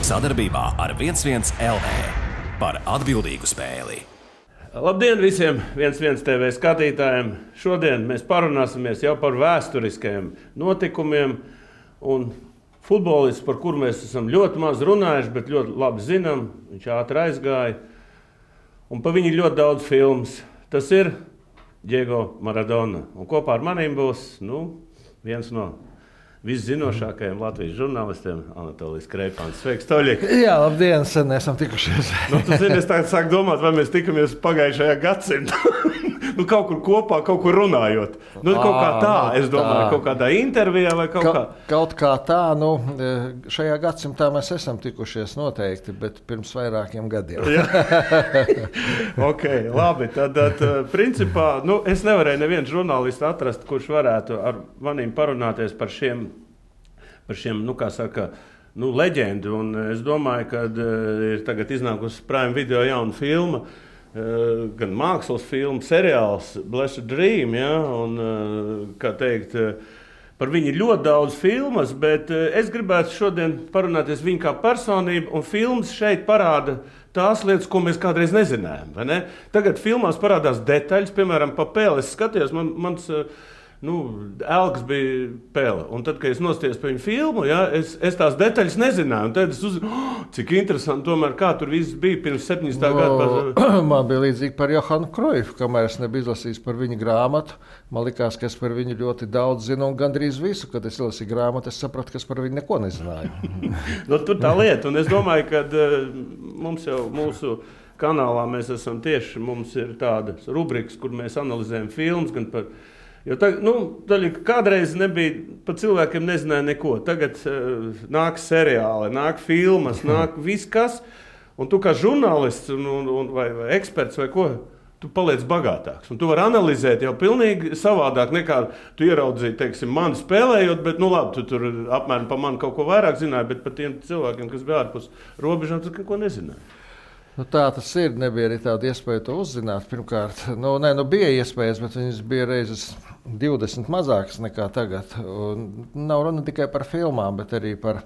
Sadarbībā ar 11 LV par atbildīgu spēli. Labdien visiem 11 TV skatītājiem! Šodien mēs parunāsimies jau par vēsturiskajiem notikumiem un futbolists, par kuru mēs esam ļoti maz runājuši, bet ļoti labi zinām. Viņš ātri aizgāja un pa viņu ļoti daudz filmas. Tas ir Diego Maradona. Un kopā ar maniem būs viens no viszinošākajiem Latvijas žurnālistiem, Anatolijs Kreipāns. Sveiks, Toļik! Jā, labdien, sen esam tikušies. Tu zini, es tagad sāku domāt, vai mēs tikamies pagājušajā gadsimtā. Kaut kur kopā, kaut kur runājot. Kaut kā tā, es domāju, kaut kādā intervijā vai kaut kā. Kaut kā tā, šajā gadsimtā mēs esam tikušies noteikti, bet pirms vairākiem gadiem. Ok, labi. Tad principā, es nevarēju nevienu žurnālistu atrast, kurš varētu ar maniem parunāties par šiem, kā saka, leģendu. Un es domāju, ka ir tagad iznākusi Prime Video jauna filma, gan mākslas filma, seriāls Blessed Dream, ja? Un, kā teikt, par viņu ir ļoti daudz filmas, bet es gribētu šodien parunāties viņu kā personību, un filmas šeit parāda tās lietas, ko mēs kādreiz nezinājām, vai ne? Tagad filmās parādās detaļas, piemēram, pa Pele. Es skatījos, mans Elks bija Pele, un tad, kad es nostājos pa viņu filmu, ja, es tās detaļas nezināju, un tad es uzzināju, cik interesanti tomēr, kā tur viss bija pirms 70. gadu. Man bija līdzīgi par Johanu Kroifu, kamēr es nebiju izlasījis par viņa grāmatu. Man likās, ka es par viņu ļoti daudz zinu, un gandrīz visu, kad es izlasīju grāmatu, es sapratu, ka es par viņu neko nezināju. Tur tā lieta, un es domāju, ka mums jau mūsu kanālā mēs esam tieši, mums ir tādas rubrikas, kur mēs analizējam filmas, gan par. Jo kādreiz nebija, par cilvēkiem nezināja neko. Tagad nāk seriāli, nāk filmas, nāk viss kas. Un tu kā žurnālists vai eksperts vai ko, tu paliec bagātāks. Un tu vari analizēt jau pilnīgi savādāk nekā tu ieraudzīji, teiksim, mani spēlējot, bet labi, tu tur apmēram par mani kaut ko vairāk zināji, bet par tiem cilvēkiem, kas bija ārpus robežām, tu neko nezināji. Tā tas ir. Nebija arī tāda iespēja to uzzināt. Pirmkārt, bija iespējas, bet viņas bija reizes 20 mazākas nekā tagad. Un nav runa tikai par filmām, bet arī par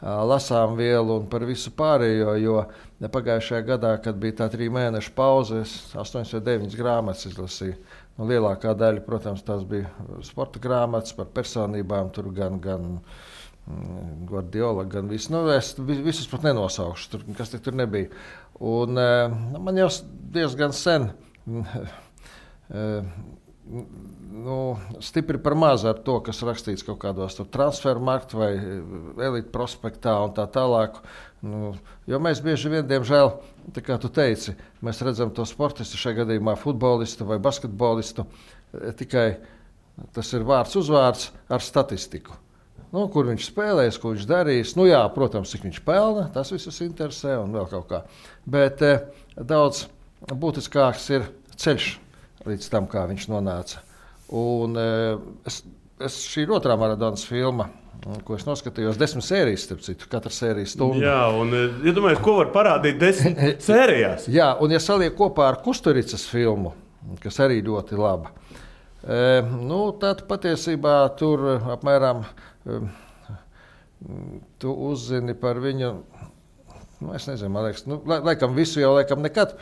lasām vielu un par visu pārējo. Jo pagājušajā gadā, kad bija tā 3 mēnešu pauze, es 8 vai 9 grāmatas izlasīju. Lielākā daļa, protams, tās bija sporta grāmatas par personībām, tur gan Guardiola, gan viss. Es visus pat nenosaukšu, kas tur nebija. Un man jau diezgan sen stipri par maz ar to, kas rakstīts kaut kādos transfermarktu vai elite prospektā un tā tālāk. Jo mēs bieži vien, diemžēl, tā kā tu teici, mēs redzam to sportistu, šajā gadījumā futbolistu vai basketbolistu, tikai tas ir vārds uzvārds ar statistiku. Kur viņš spēlēs, ko viņš darīs. Jā, protams, cik viņš pelna, tas visus interesē un vēl kaut kā. Bet daudz būtiskāks ir ceļš līdz tam, kā viņš nonāca. Un šī ir otrā Maradonas filma, ko es noskatījos, 10 sērijas, starp citu, katra sērija stundu. Jā, un iedomājies, ko var parādīt 10 sērijās. Jā, un ja saliek kopā ar Kusturicas filmu, kas arī ļoti laba, tad patiesībā tur apmēram tu uzzini par viņu, es nezinu, man liekas, laikam visu jau nekad,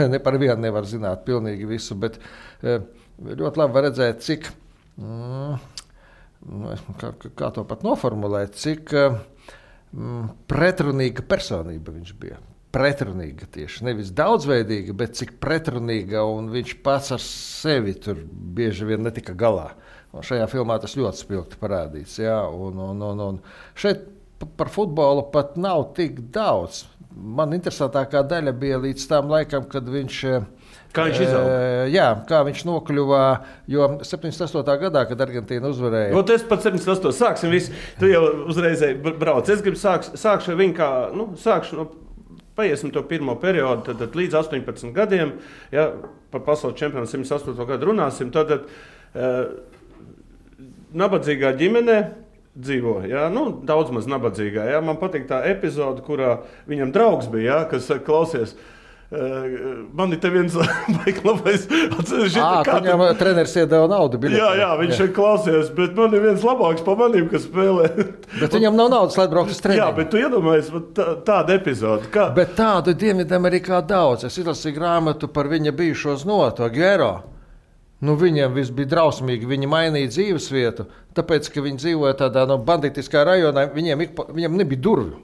ne par vienu nevar zināt pilnīgi visu, bet ļoti labi var redzēt, cik, kā to pat noformulēt, cik pretrunīga personība viņš bija. Pretrunīga tieši, nevis daudzveidīga, bet cik pretrunīga, un viņš pats ar sevi tur bieži vien netika galā. Un šajā filmā tas ļoti spilgti parādīts. Jā, un šeit par futbolu pat nav tik daudz. Man interesantākā daļa bija līdz tam laikam, kad viņš. Kā viņš izauga? Jā, kā viņš nokļuva, jo 78. gadā, kad Argentīna uzvarēja. Es pat 78. sāksim visu. Tu jau uzreiz brauc. Es gribu sākšu viņu kā, paiesim to pirmo periodu, tad līdz 18 gadiem, ja, par pasaules čempionu 108. gadu runāsim, tad nabadzīgā ģimenē dzīvo, ja? Daudz maz nabadzīgā. Ja? Man patīk tā epizode, kurā viņam draugs bija, ja? Kas klausies, Man ir te viens labais atceries. Viņam treneris iedeva naudu. Jā, viņš šeit klausījās, bet man ir viens labāks pa manīm, kas spēlē. Bet viņam nav naudas, lai braukt uz treniņu. Jā, bet tu iedomājies tādu epizodu. Bet tādu Dienvidamerikā daudz. Es izlasīju grāmatu par viņa bijušo znotu, Aguero. Viņiem viss bija drausmīgi, viņi mainīja dzīvesvietu, tāpēc, ka viņi dzīvoja tādā banditiskā rajonā, viņiem nebija durvju.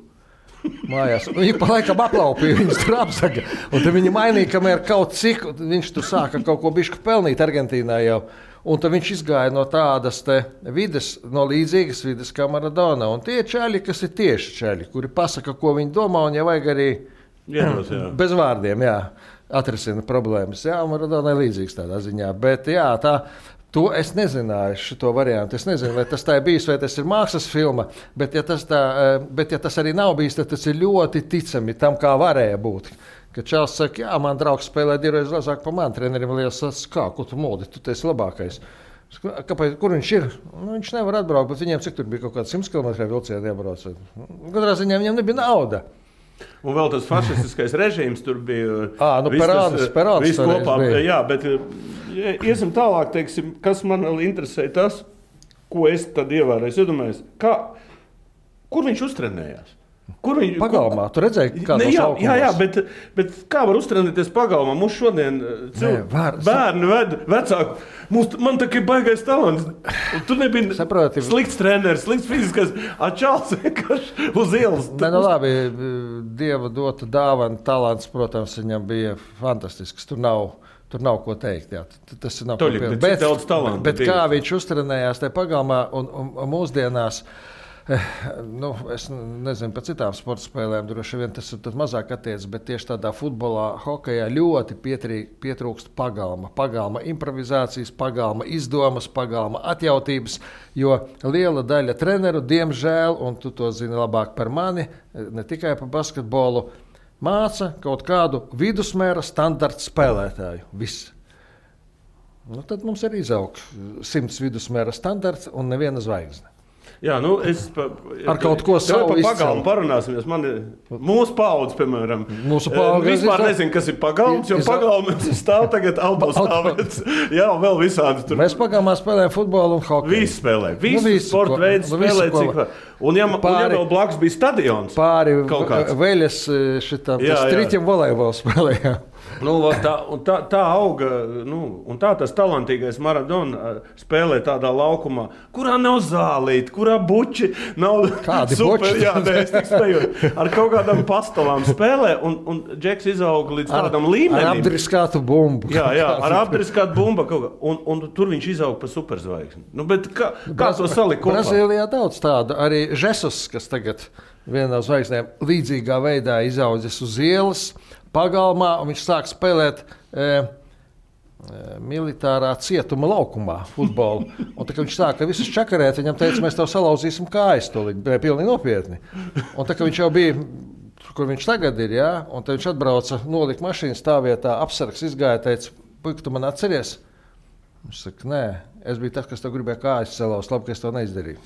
Mājās. Viņi pa laikam aplaupīja, viņas tur apzaga. Un tad viņi mainīja, kamēr kaut cik, viņš tur sāka kaut ko bišķi pelnīt Argentīnā jau. Un tad viņš izgāja no tādas vides, no līdzīgas vides kā Maradona. Un tie čaļi, kas ir tieši čaļi, kuri pasaka, ko viņi domā, un ja vajag arī bez vārdiem, atrisina problēmas. Jā, Maradona ir līdzīgs tādā ziņā. Bet to es nezināju, šo variantu. Es nezinu, vai tas tā ir bijis, vai tas ir mākslas filma, bet ja tas arī nav bijis, tad tas ir ļoti ticami tam, kā varēja būt. Kad Čāls saka, jā, man draugs spēlē divreiz lazāk pa mani, trenerim liekas, ko tu moldi, tu esi labākais. Kāpēc, kur viņš ir? Viņš nevar atbraukt, bet viņiem cik tur bija kaut kāds 100 km vilcieni jābrauc. Katrā ziņā viņam nebija nauda. Un vēl tas fašistiskais režīms tur bija. Perāns viss kopā. Jā, bet iesim tālāk, teiksim, kas man vēl interesē tas, ko es tad ievēroju. Es iedomājos, kur viņš uztrenējās? Pagalmā, tu redzēji, kā tas jā, bet kā var uztrenēties pagalmā? Mums šodien bērni ved vecāku. Man tā kā ir baigais talants. Tu nebija slikts treneris, slikts fiziskais. Čāls vienkārši uz ielas. Labi, Dieva dota dāvana, talants, protams, viņam bija fantastisks. Tur nav ko teikt. Jā. Tas nav ko pieņemt. Bet kā viņš uztrenējās tajā pagalmā un mūsdienās, es nezinu par citām sporta spēlēm, droši vien tas ir mazāk attiecas, bet tieši tādā futbolā, hokejā ļoti pietrūkst pagalma improvizācijas, pagalma izdomas, pagalma atjautības, jo liela daļa treneru, diemžēl, un tu to zini labāk par mani, ne tikai par basketbolu, māca kaut kādu vidusmēra standarta spēlētāju. Viss. Tad mums ir izaug 100 vidusmēra standarts un neviena zvaigzne. Jā, ar kaut ko savu par pagalmu parunāsimies. Mūsu paudze, piemēram, vispār nezinu, kas ir pagalms, jo pagalms stāv tagad autostāvēts. Jā, vēl visādi tur. Mēs pagalmā spēlējam futbolu un hokeju. Visi spēlē. Visi sporta veidi spēlē. Un ja vēl blakus bija stadions. Pāri veļas šitam striķim volejbolu spēlējām. Tā auga, un tas talantīgais Maradona spēlē tādā laukumā, kurā nav zālīti, kurā buči nav super, es tik spēju, ar kaut kādām pastalām spēlē, un Džeks izauga līdz tādam līmenim. Ar apdriskātu bumbu. Jā, ar apdriskātu bumbu, un tur viņš izauga pa superzvaigzni. Bet kā to salikt kopā? Brazīlijā daudz tādu, arī Žesus, kas tagad vienā no zvaigznēm līdzīgā veidā izaudzis uz ielas, pagalmā, un viņš sāk spēlēt militārā cietuma laukumā futbolu. Un tā, kad viņš sāka visus čakarēt, viņam teica, mēs tev salauzīsim kājas, to pilnīgi nopietni. Un tā, ka viņš jau bija, kur viņš tagad ir, un tad viņš atbrauca, nolika mašīnu stāvvietā, apsargs izgāja, teica, puika, tu man atceries? Viņš saka, nē, es biju tas, kas tev gribēja kājas salauzt, labi, ka es to neizdarīju.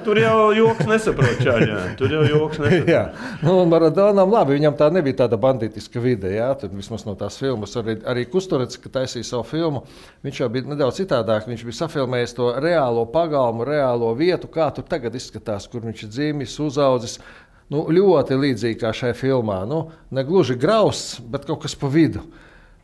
Tur jau joks nesaprot, čāļā. Tur jau joks nesaprot. Maradonam labi, viņam tā nebija tāda banditiska vide, tur vismaz no tās filmas. Arī Kusturets, kad taisīja savu filmu, viņš jau bija nedaudz citādāk. Viņš bija safilmējis to reālo pagalmu, reālo vietu, kā tur tagad izskatās, kur viņš ir dzīvis, uzaudzis. Ļoti līdzīgi kā šajā filmā. Ne gluži grausts, bet kaut kas pa vidu.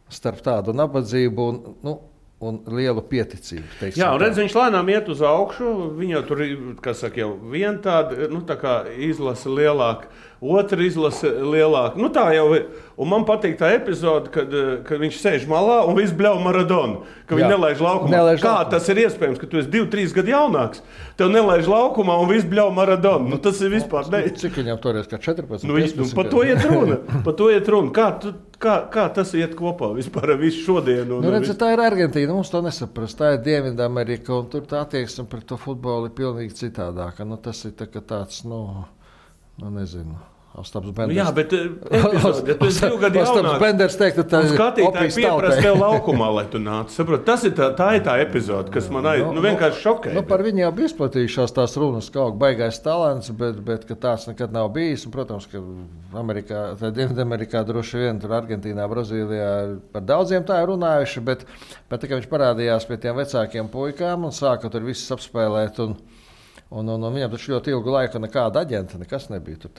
Starp tādu nabadzību un lielu pieticību. Jā, un redz, viņš lēnām iet uz augšu. Viņa tur ir, kas saka, jau viena tāda, tā kā izlase lielāka, otra izlase lielāka. Tā jau ir. Un man patīk tā epizode, kad viņš sēž malā un viss bļauj Maradonu, ka viņi nelaiž laukumā. Tas ir iespējams, ka tu esi 2-3 gadu jaunāks, tev nelaiž laukumā un viss bļauj Maradonu. Tas ir vispār ne. Cik viņam toreiz, kā 14? Par to iet runa. Kā tas iet kopā vispār ar visu šodienu? Tā ir Argentīna, mums to nesaprast. Tā ir Dienvidamerika, un tur tā attieksme pret to futbolu ir pilnīgi citādāka. Tas ir tāds, nezinu, Ostaps Benders. Jā, bet epizode, ja tu esi 2 gadu jaunāks, Ostaps Benders teikt, ka tā skatītāji pieprasa tev laukumā, lai tu nāc. Saprot, tā ir tā epizode, kas man vienkārši šokē. Par viņu jau bija izplatījušās tās runas, ka baigais talants, bet ka tāds nekad nav bijis. Un, protams, ka Dienvidamerikā droši vien, tur Argentīnā, Brazīlijā par daudziem tā ir runājuši, bet tā kā viņš parādījās pie tiem vecākiem puikām un sāka tur visus apspēlēt, un viņam taču ļoti ilgu laiku nekāda aģenta, nekas nebija.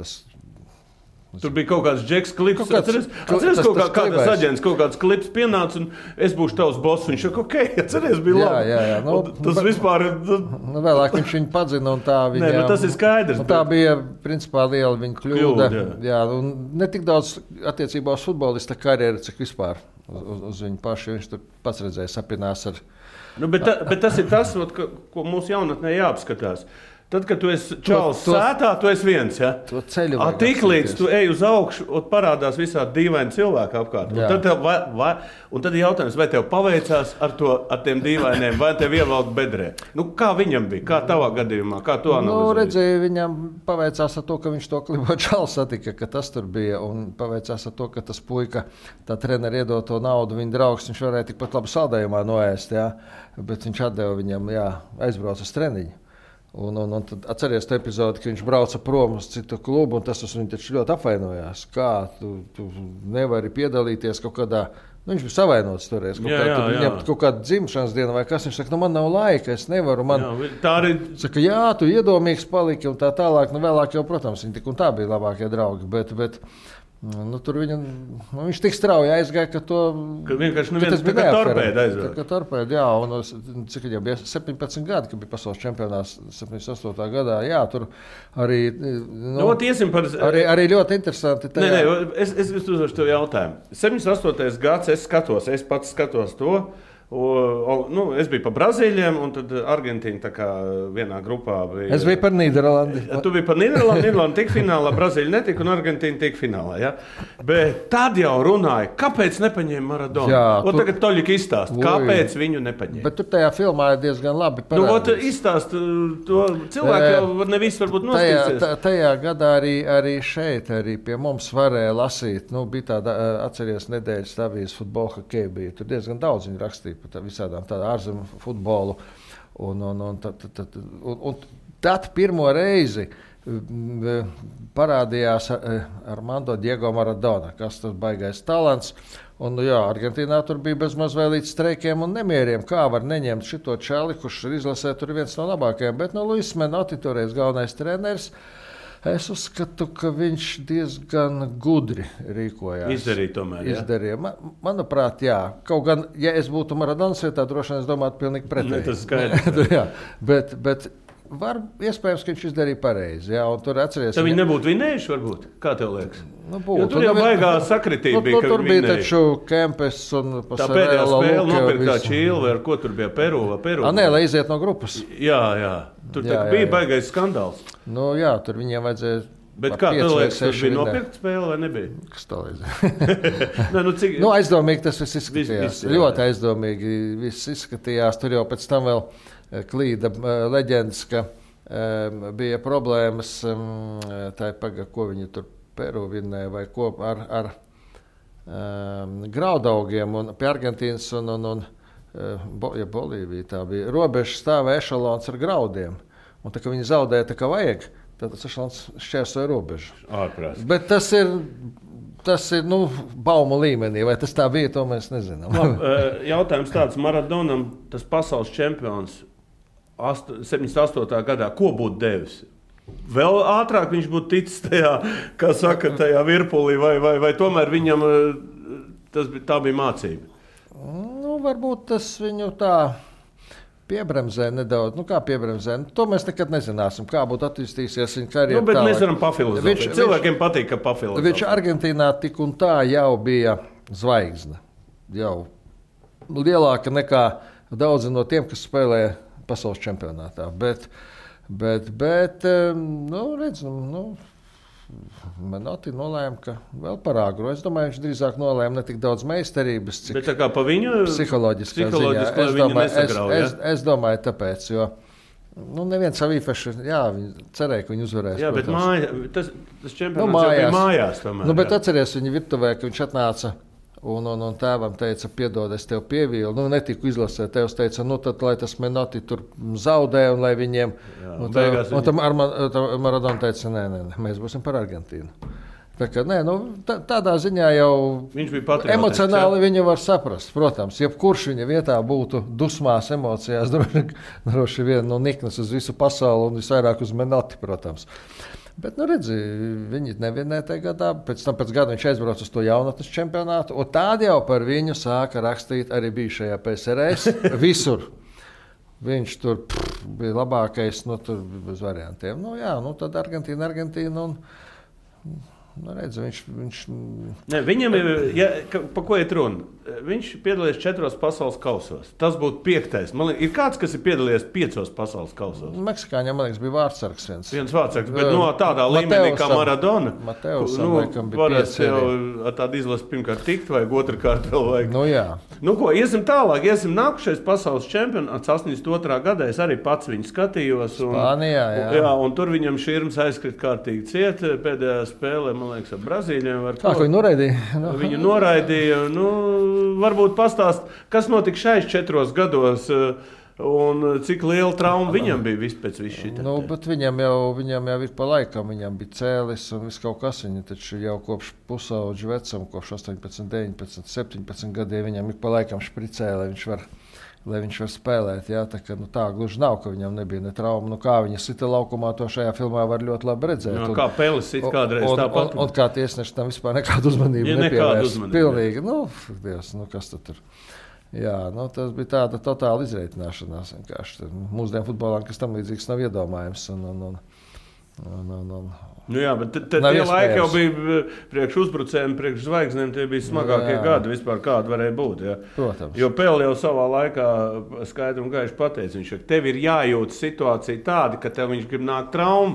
Tur bija kaut kāds Džeks klips. Atceries, kādas aģents, kaut kāds klips pienāca, un es būšu tavs boss. Viņš saka, ok, atceries, bija labi. Jā. Tas vispār ir... Vēlāk viņš viņu padzina, un tā viņa... Nē, tas ir skaidrs. Tā bija, principā, liela viņa kļūda. Jā, un ne tik daudz attiecībā uz futbolista karjeru, cik vispār uz viņu pašu. Viņš tur pats redzēja, sapinās ar... Bet tas ir tas, ko mūsu jaunatnē jāapskatās. Tad, kad tu esi čalis sētā, tu esi viens. Ja? Tik līdz tu ej uz augšu, un parādās visādi dīvaini cilvēki apkārt. Un tad ir jautājums, vai tev paveicās ar tiem dīvainiem, vai tev ievelk bedrē. Kā viņam bija? Kā tavā gadījumā? Kā tu analizēji? Redzēju, viņam paveicās ar to, ka viņš to klibo čalis satika, ka tas tur bija. Un paveicās ar to, ka tas puika, tā treneri iedod to naudu, viņa draugs, viņš varēja tikpat labi saldējumā noēst. Ja? Bet viņš atdeva viņam, aizbrauc uz treniņu. Un tad atceries to epizodi, ka viņš brauca prom uz citu klubu, un tas viņu taču ļoti apvainojās. Kā tu nevari piedalīties kaut kādā, viņš bija savainots toreiz, viņam kaut kāda dzimšanas diena vai kas, viņš saka, man nav laika, es nevaru, tā arī... Saka, tu iedomīgs paliki un tā tālāk, vēlāk jau, protams, viņi tik un tā bija labākie draugi, bet tur viņš tik strauji aizgāja, ka vienkārši neviens tā kā torpēda aizgāja. Tā kā torpēda, un cik jau bija 17 gadi, kad bija pasaules čempionāts 78. gadā, tur arī... Arī ļoti interesanti. Es uzdošu tev jautājumu. 78. gads, es pats skatos to. Es biju par Brazīļiem, un tad Argentīna tā kā vienā grupā bija. Es biju par Nīderlandi. Tu biji par Nīderlandi, Nīderlanda tika finālā, Brazīļa netika, un Argentīna tika finālā. Ja? Bet tad jau runāja, kāpēc nepaņēma Maradonu? Tagad Toļika izstāst, kāpēc viņu nepaņēma. Bet tur tajā filmā ir diezgan labi parādīts. Izstāst to cilvēku jau nevis varbūt nostīsies. Tajā gadā arī šeit, arī pie mums varēja lasīt. Bija tāda, atceries, nedēļas avīzes futbola hokeja bija. Tur diezgan daudz viņi rakstīja par visādām ārzemju futbolu. Un tad pirmo reizi parādījās Armando Diego Maradona, kas tas baigais talants. Un, Argentīnā tur bija bezmaz vēl līdz streikiem un nemieriem. Kā var neņemt šito čali, kurš ir izlasē, tur viens no labākajiem. Bet Luis Menotti, toreiz galvenais treneris, es uzskatu, ka viņš diezgan gudri rīkojās. Izdarīja. Manuprāt, jā. Kaut gan, ja es būtu Maradonas vietā, droši vien es domātu pilnīgi pretēji. Tas skaidrs. Bet iespējams, ka viņš izdarīja pareizi. Jā, un tur atceries. Tad viņi nebūtu vinējuši, varbūt? Kā tev liekas? Tur jau baigā sakritība bija, ka tur bija taču Kempes un tā pēdējā spēle nopirktā Čīle, ar ko tur bija Peru? Lai iziet no grupas. Jā. Tur bija baigais skandāls. Tur viņiem vajadzēja. Bet kā tev liekas, tas bija nopirkt spēle vai nebija? Kas tā liekas? Aizdomīgi tas viss izskatījās. Ļoti aizdomīgi viss izskatījās. Tur jau pēc tam vēl klīda leģendas, ka bija problēmas, ko viņi tur Peru vinnēja vai ko ar graudaugiem un pie Argentīnas un Bolīvija. Tā bija robeža stāvēja ešalons ar graudiem. Un tā kā viņi zaudēja tā kā vajag, tad tas ešalons šķērsoja robežu. Ārprāt. Bet tas ir baumu līmenī. Vai tas tā bija, to mēs nezinām. Jautājums tāds, Maradonam, tas pasaules čempions 78. gadā, ko būtu devis? Vēl ātrāk viņš būtu ticis tajā, kā saka, tajā virpulī, vai tomēr viņam tā bija mācība? Varbūt tas viņu tā piebremzē nedaudz. Kā piebremzē? To mēs nekad nezināsim, kā būtu attīstīsies viņa karjera. Bet mēs varam pafilozofēt. Cilvēkiem patīk, ka pafilozofēt. Viņš Argentīnā tik un tā jau bija zvaigzne. Jau lielāka nekā daudzi no tiem, kas spēlē pasaules čempionātā. Bet Menotti nolēma, ka vēl par agru. Es domāju, viņš drīzāk nolēma ne tik daudz meistarības, cik pa viņu psiholoģiskā ziņā. Es domāju, tāpēc, jo Nu, neviens savu īpaši, jā, viņi cerēja, ka viņi uzvarēs. Jā, bet tas čempionāts mājās. jau bija mājās tomēr. Nu, bet atceries viņa virtuvē, ka viņš atnāca un tēvam teica, piedod, es tev pievīlu. Nu, netiku izlasēt, tevs teica, nu tad, lai tas Menotti tur zaudē un lai viņiem... Jā, un tam Maradona teica, nē, mēs būsim par Argentīnu. Tā kā, nē, nu, tādā ziņā jau emocionāli viņu var saprast. Protams, jebkurš viņa vietā būtu dusmās, emocijās, droši vien no niknas uz visu pasauli un visvairāk uz Menotti, protams. Bet, nu, redzi, viņi nevienē tajā gadā. Pēc gada viņš aizbrauca uz to jaunatnes čempionātu, un tādi jau par viņu sāka rakstīt arī bijušajā PSRS visur. Viņš tur bija labākais, nu, tur bez variantiem. Nu, jā, nu, tad Argentīna un... Nu, redz, viņš... Ne, viņam pa ko iet runa? Viņš piedalījās 4 pasaules kausos. Tas būtu 5. Man liekas, ir kāds, kas ir piedalījies 5 pasaules kausos. Meksikāņiem, man liekas, bija vārdsargs viens. Viens vārdsargs, bet no tādā līmenī kā Maradona. Mateusam, laikam, bija 5. Jau ar tādu izlasi pirmkārt tikt, vajag otrkārt vēl vajag. Nu, jā. Nu, ko, iesim tālāk. Nākušais pasaules čempionāts 82. gadā. Es arī pats viņu skatījos. Spānijā, jā. Un tur viņam širms aizkrit kārtīgi ciet pēdējā spēlē. Man liekas, ar Brazīļiem. Kā viņu noraidīja? Viņu noraidīja. Nu, varbūt pastāst, kas notika šais 4 gados un cik liela trauma viņam bija pēc visu šitā. Nu, bet viņam jau ir pa laikam. Viņam bija cēlis un viss kaut kas. Viņa taču jau kopš pusauģu vecuma, kopš 18, 19, 17 gadiem viņam ir pa laikam špricē, lai viņš var spēlēt. Jā, tā, ka, nu, tā gluži nav, ka viņam nebija ne trauma. Nu, kā viņa sita laukumā, to šajā filmā var ļoti labi redzēt. Jā, kā Pelis sit kādreiz tāpat. Un kā tiesneši tam vispār nekādu uzmanību nepievērst. Pilnīgi, nu, Dievs, nu kas tad tur? Jā, nu, tas bija tāda totāla izreitināšanās. Mūsdienu futbolā, kas tam līdzīgs nav iedomājams. Nu jā, bet tie laiki jau bija priekš uzbrucējiem, priekš zvaigznēm, tie bija smagākie gadi vispār, kādi varēja būt. Jā. Protams. Jo Pele jau savā laikā skaidri un gaiši pateica, viņš, ka tev ir jājūt situācija tāda, ka tev viņš grib nākt traumu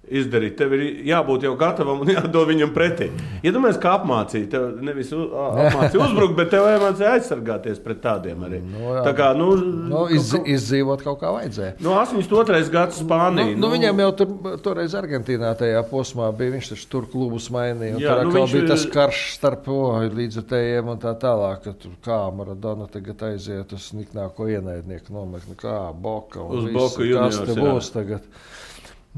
izdarīt. Tev ir jābūt jau gatavam un jādod viņam pretī. Iedomājies, kā apmācīja. Tev nevis apmācīja uzbrukt, bet tev jāmācīja aizsargāties pret tādiem arī. Tā kā, izdzīvot kaut kā vajadzēja. 82. gads Spānija. Viņam jau toreiz Argentīnā tajā posmā bija, viņš taču tur klubus mainīja. Jā, tur atkal bija tas karš starp līdzjutējiem un tā tālāk, ka tur kā Maradona tagad aiziet uz niknāko ienaidnieku nometni, kā Boka un visu, kas te būs tagad.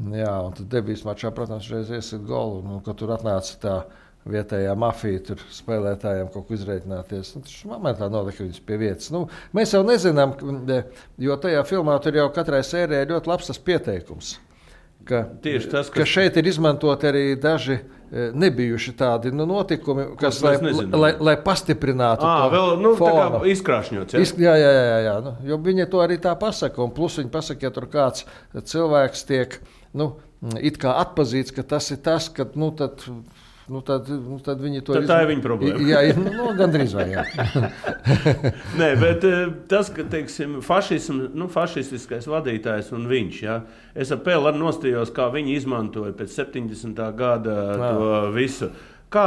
Jā, un tad debijas mačā, protams, reiz iesit golu, kad tur atnāca tā vietējā mafija, tur spēlētājiem kaut ko izreikināties. Tas momentā nolika viņus pie vietas. Nu, mēs jau nezinām, jo tajā filmā tur jau katrai sērijai ļoti labs tas pieteikums. Ka šeit ir izmantot arī daži nebijuši tādi notikumi, kas, lai pastiprinātu to vēl, tā kā izkrāšņots. Jā. Nu, jo viņi to arī tā pasaka, un plus viņi pasaka, ja tur kāds cilvēks tiek, it kā atpazīts, ka tas ir tas, ka, tad viņi to tā ir viņa problēma. Jā, gandrīz vai jā. Nē, bet tas, ka, teiksim, fašistiskais vadītājs un viņš, jā, es ar Peli arī nostījos, kā viņi izmantoja pēc 70. gada to visu. Kā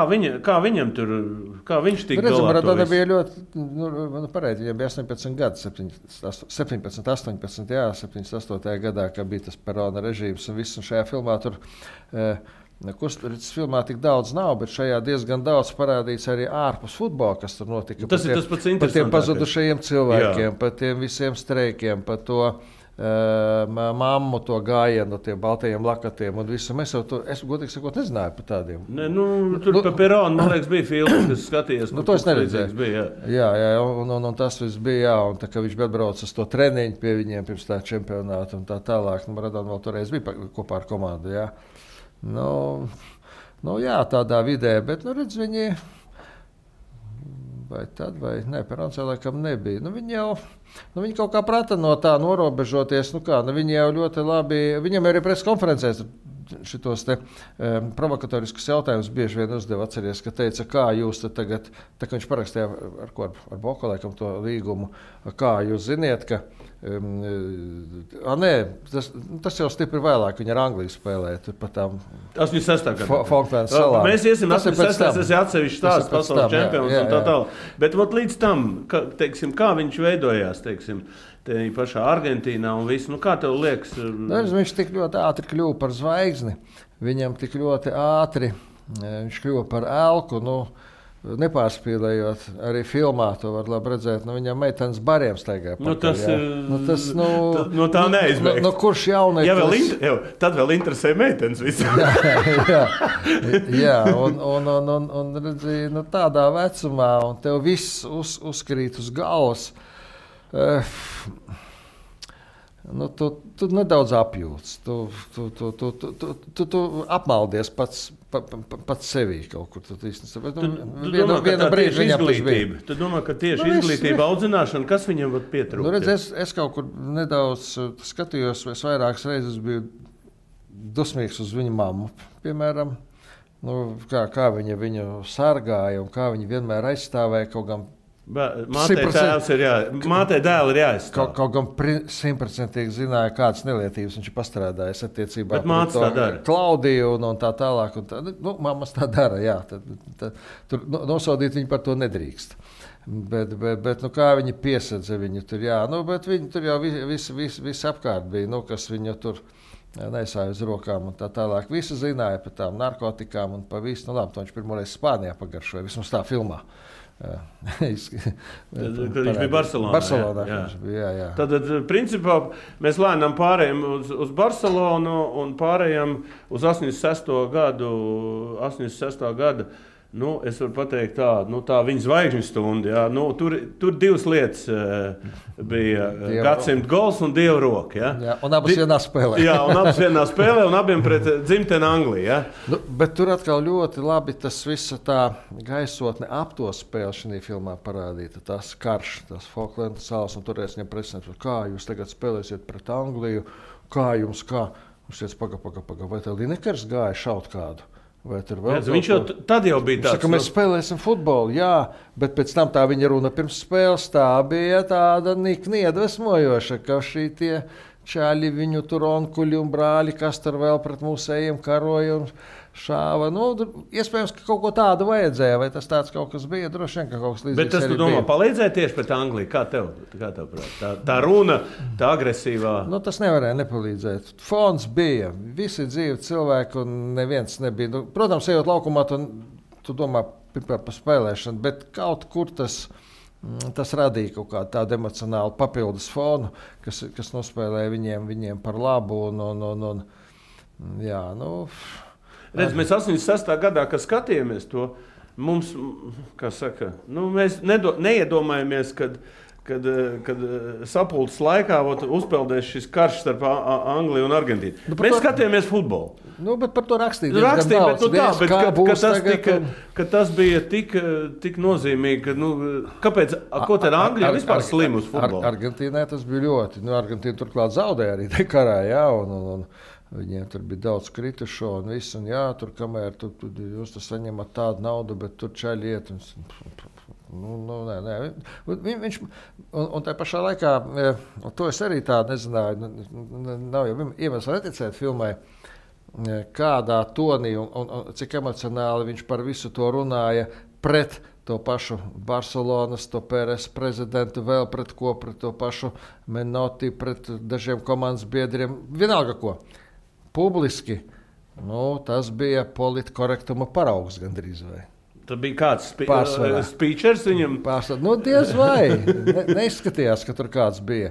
viņam tur, kā viņš tika galā? Maradona bija ļoti, pareizi, viņam bija 18 gadi, 17, 18, jā, 78. gadā, kad bija tas Perona režīms un viss, un šajā filmā tur, filmā tik daudz nav, bet šajā diezgan daudz parādīts arī ārpus futbola, kas tur notika. Tas ir tas pats interesantākais. Par tiem pazudušajiem cilvēkiem, par tiem visiem streikiem, par to mammu, to gājienu, tiem baltajiem lakatiem un visu. Mēs jau to, es godīgi sakot, nezināju par tādiem. Ne, tur pa Peronu, man liekas, bija filmas, kas skatījās. To es neredzēju. Jā, un tas viss bija, jā, un tā kā viņš atbrauca uz to treniņu pie viņiem pirms tā čempionāta un tā tālāk. Maradona vēl toreiz bija kopā ar komandu, jā. Jā, tādā vidē, bet, redz, viņi vai tad, vai ne, Perons jau laikam nebija. Viņi kaut kā prata no tā norobežoties, viņi jau ļoti labi, viņam arī preses konferencēs šitos te provokatoriskus jautājumus bieži vien uzdeva, atceries, ka teica, kā jūs tagad, tā kā viņš parakstīja ar Boku laikam to līgumu, kā jūs ziniet, ka Nē, tas jau stipri vēlāk. Viņa ar Angliju spēlēja. Tur pat tām 86. gadā. Falklandu salām. Mēs iesim 86. Tas ir atsevišķs stāsts, pasaules čempions un tā tālāk. Bet līdz tam, teiksim, kā viņš veidojās, teiksim, te pašā Argentīnā un viss, kā tev liekas? Viņš tik ļoti ātri kļuva par zvaigzni. Viņam tik ļoti ātri viņš kļuva par elku. Nepārspīlējot, arī filmā to var labi redzēt. Viņam meitenes bariem staigāja. Tā neizbeigts. Kurš jaunais? Tad vēl interesē meitenes visam. jā, un redzīja, tādā vecumā, un tev viss uzkrīt uz galvas. Tu nedaudz apjūts. Tu apmaldies pats sevī kaut kur. Tu domā, ka tieši izglītība, audzināšana, kas viņam var pietrūkt? Es kaut kur nedaudz skatījos, es vairākas reizes biju dusmīgs uz viņu mammu, piemēram. Kā viņa viņu sargāja un kā viņa vienmēr aizstāvēja kaut gan. Mātei dēli ir jāizstāv. Kaut gan 100% zināja, kādas nelietības viņš ir pastrādājis attiecībā pret Klaudiju un tā tālāk. Mammas tā dara, jā. Tur nosodīt viņu par to nedrīkst. Bet kā viņi piesedza viņu tur, jā. Bet viņi tur jau viss apkārt bija, kas viņu tur nesāja uz rokām un tā tālāk. Visi zināja par tām narkotikām un pa visu. Labi, to viņš pirmoreiz Spānijā pagaršoja, vismaz tā filmā. Viņš bija Barcelonā. Jā. Tad, principā, mēs lēnām pārējām uz Barcelonu un pārējām uz 86. gadu. Es varu pateikt tā viņa zvaigžņu stunda. Jā. Tur divas lietas bija gadsimta gols un Dieva roka. Jā, un abas vienā spēlē. Un abiem pret dzimteni Angliju. Jā. Bet tur atkal ļoti labi tas visa tā gaisotne ap to spēli šajā filmā parādīta. Tas karš, tas Falklandu salas, un toreiz viņam presināts, kā jūs tagad spēlēsiet pret Angliju, kā? Viņš teica, paga, vai tev Linekers gāja šaut kādu? Viņš jau tad bija tāds. Mēs spēlēsim futbolu, jā, bet pēc tam tā viņa runa pirms spēles tā bija tāda nikni iedvesmojoša, ka šī tie čāļi viņu tur onkuļi un brāļi, kas tur vēl pret mūsējiem karoja un šāva. Iespējams, ka kaut ko tādu vajadzēja, vai tas tāds kaut kas bija, droši vien, ka kaut kas līdzīgs. Bet tas, tu domā, palīdzēja tieši pret Angliju? Kā tev prāt? Tā runa, tā agresīvā? Tas nevarēja nepalīdzēt. Fons bija, visi dzīvi cilvēki un neviens nebija. Protams, ejot laukumā, tu domā par spēlēšanu, bet kaut kur tas radīja kaut kādu tādu emocionālu papildus fonu, kas nospēlēja viņiem par labu. Redz, mēs 86. gadā, kad skatījāmies to, mums, kā saka, mēs neiedomājamies, kad sapulces laikā uzpeldēs šis karš starp Angliju un Argentīnu. Mēs skatījāmies futbolu. Bet par to rakstīja, bet tas bija tik nozīmīgi, kāpēc, ko tad Anglija vispār slim uz futbolu? Argentīnai tas bija ļoti. Argentīna turklāt zaudēja arī te karā, jā, un viņiem tur bija daudz kritušo un viss, un jā, tur kamēr jūs saņemat tādu naudu, bet tur čaļi iet. Nē. Viņš, un tā pašā laikā, to es arī tā nezināju, nav jau iemesls neticēt filmai, kādā tonī un cik emocionāli viņš par visu to runāja pret to pašu Barcelonas, to Pēres prezidentu, vēl pret to pašu Menotti, pret dažiem komandas biedriem, vienalga ko. Publiski, tas bija politkorektuma paraugs gandrīz vai. Tas bija kāds speechers viņam? Diez vai. Neizskatījās, ka tur kāds bija.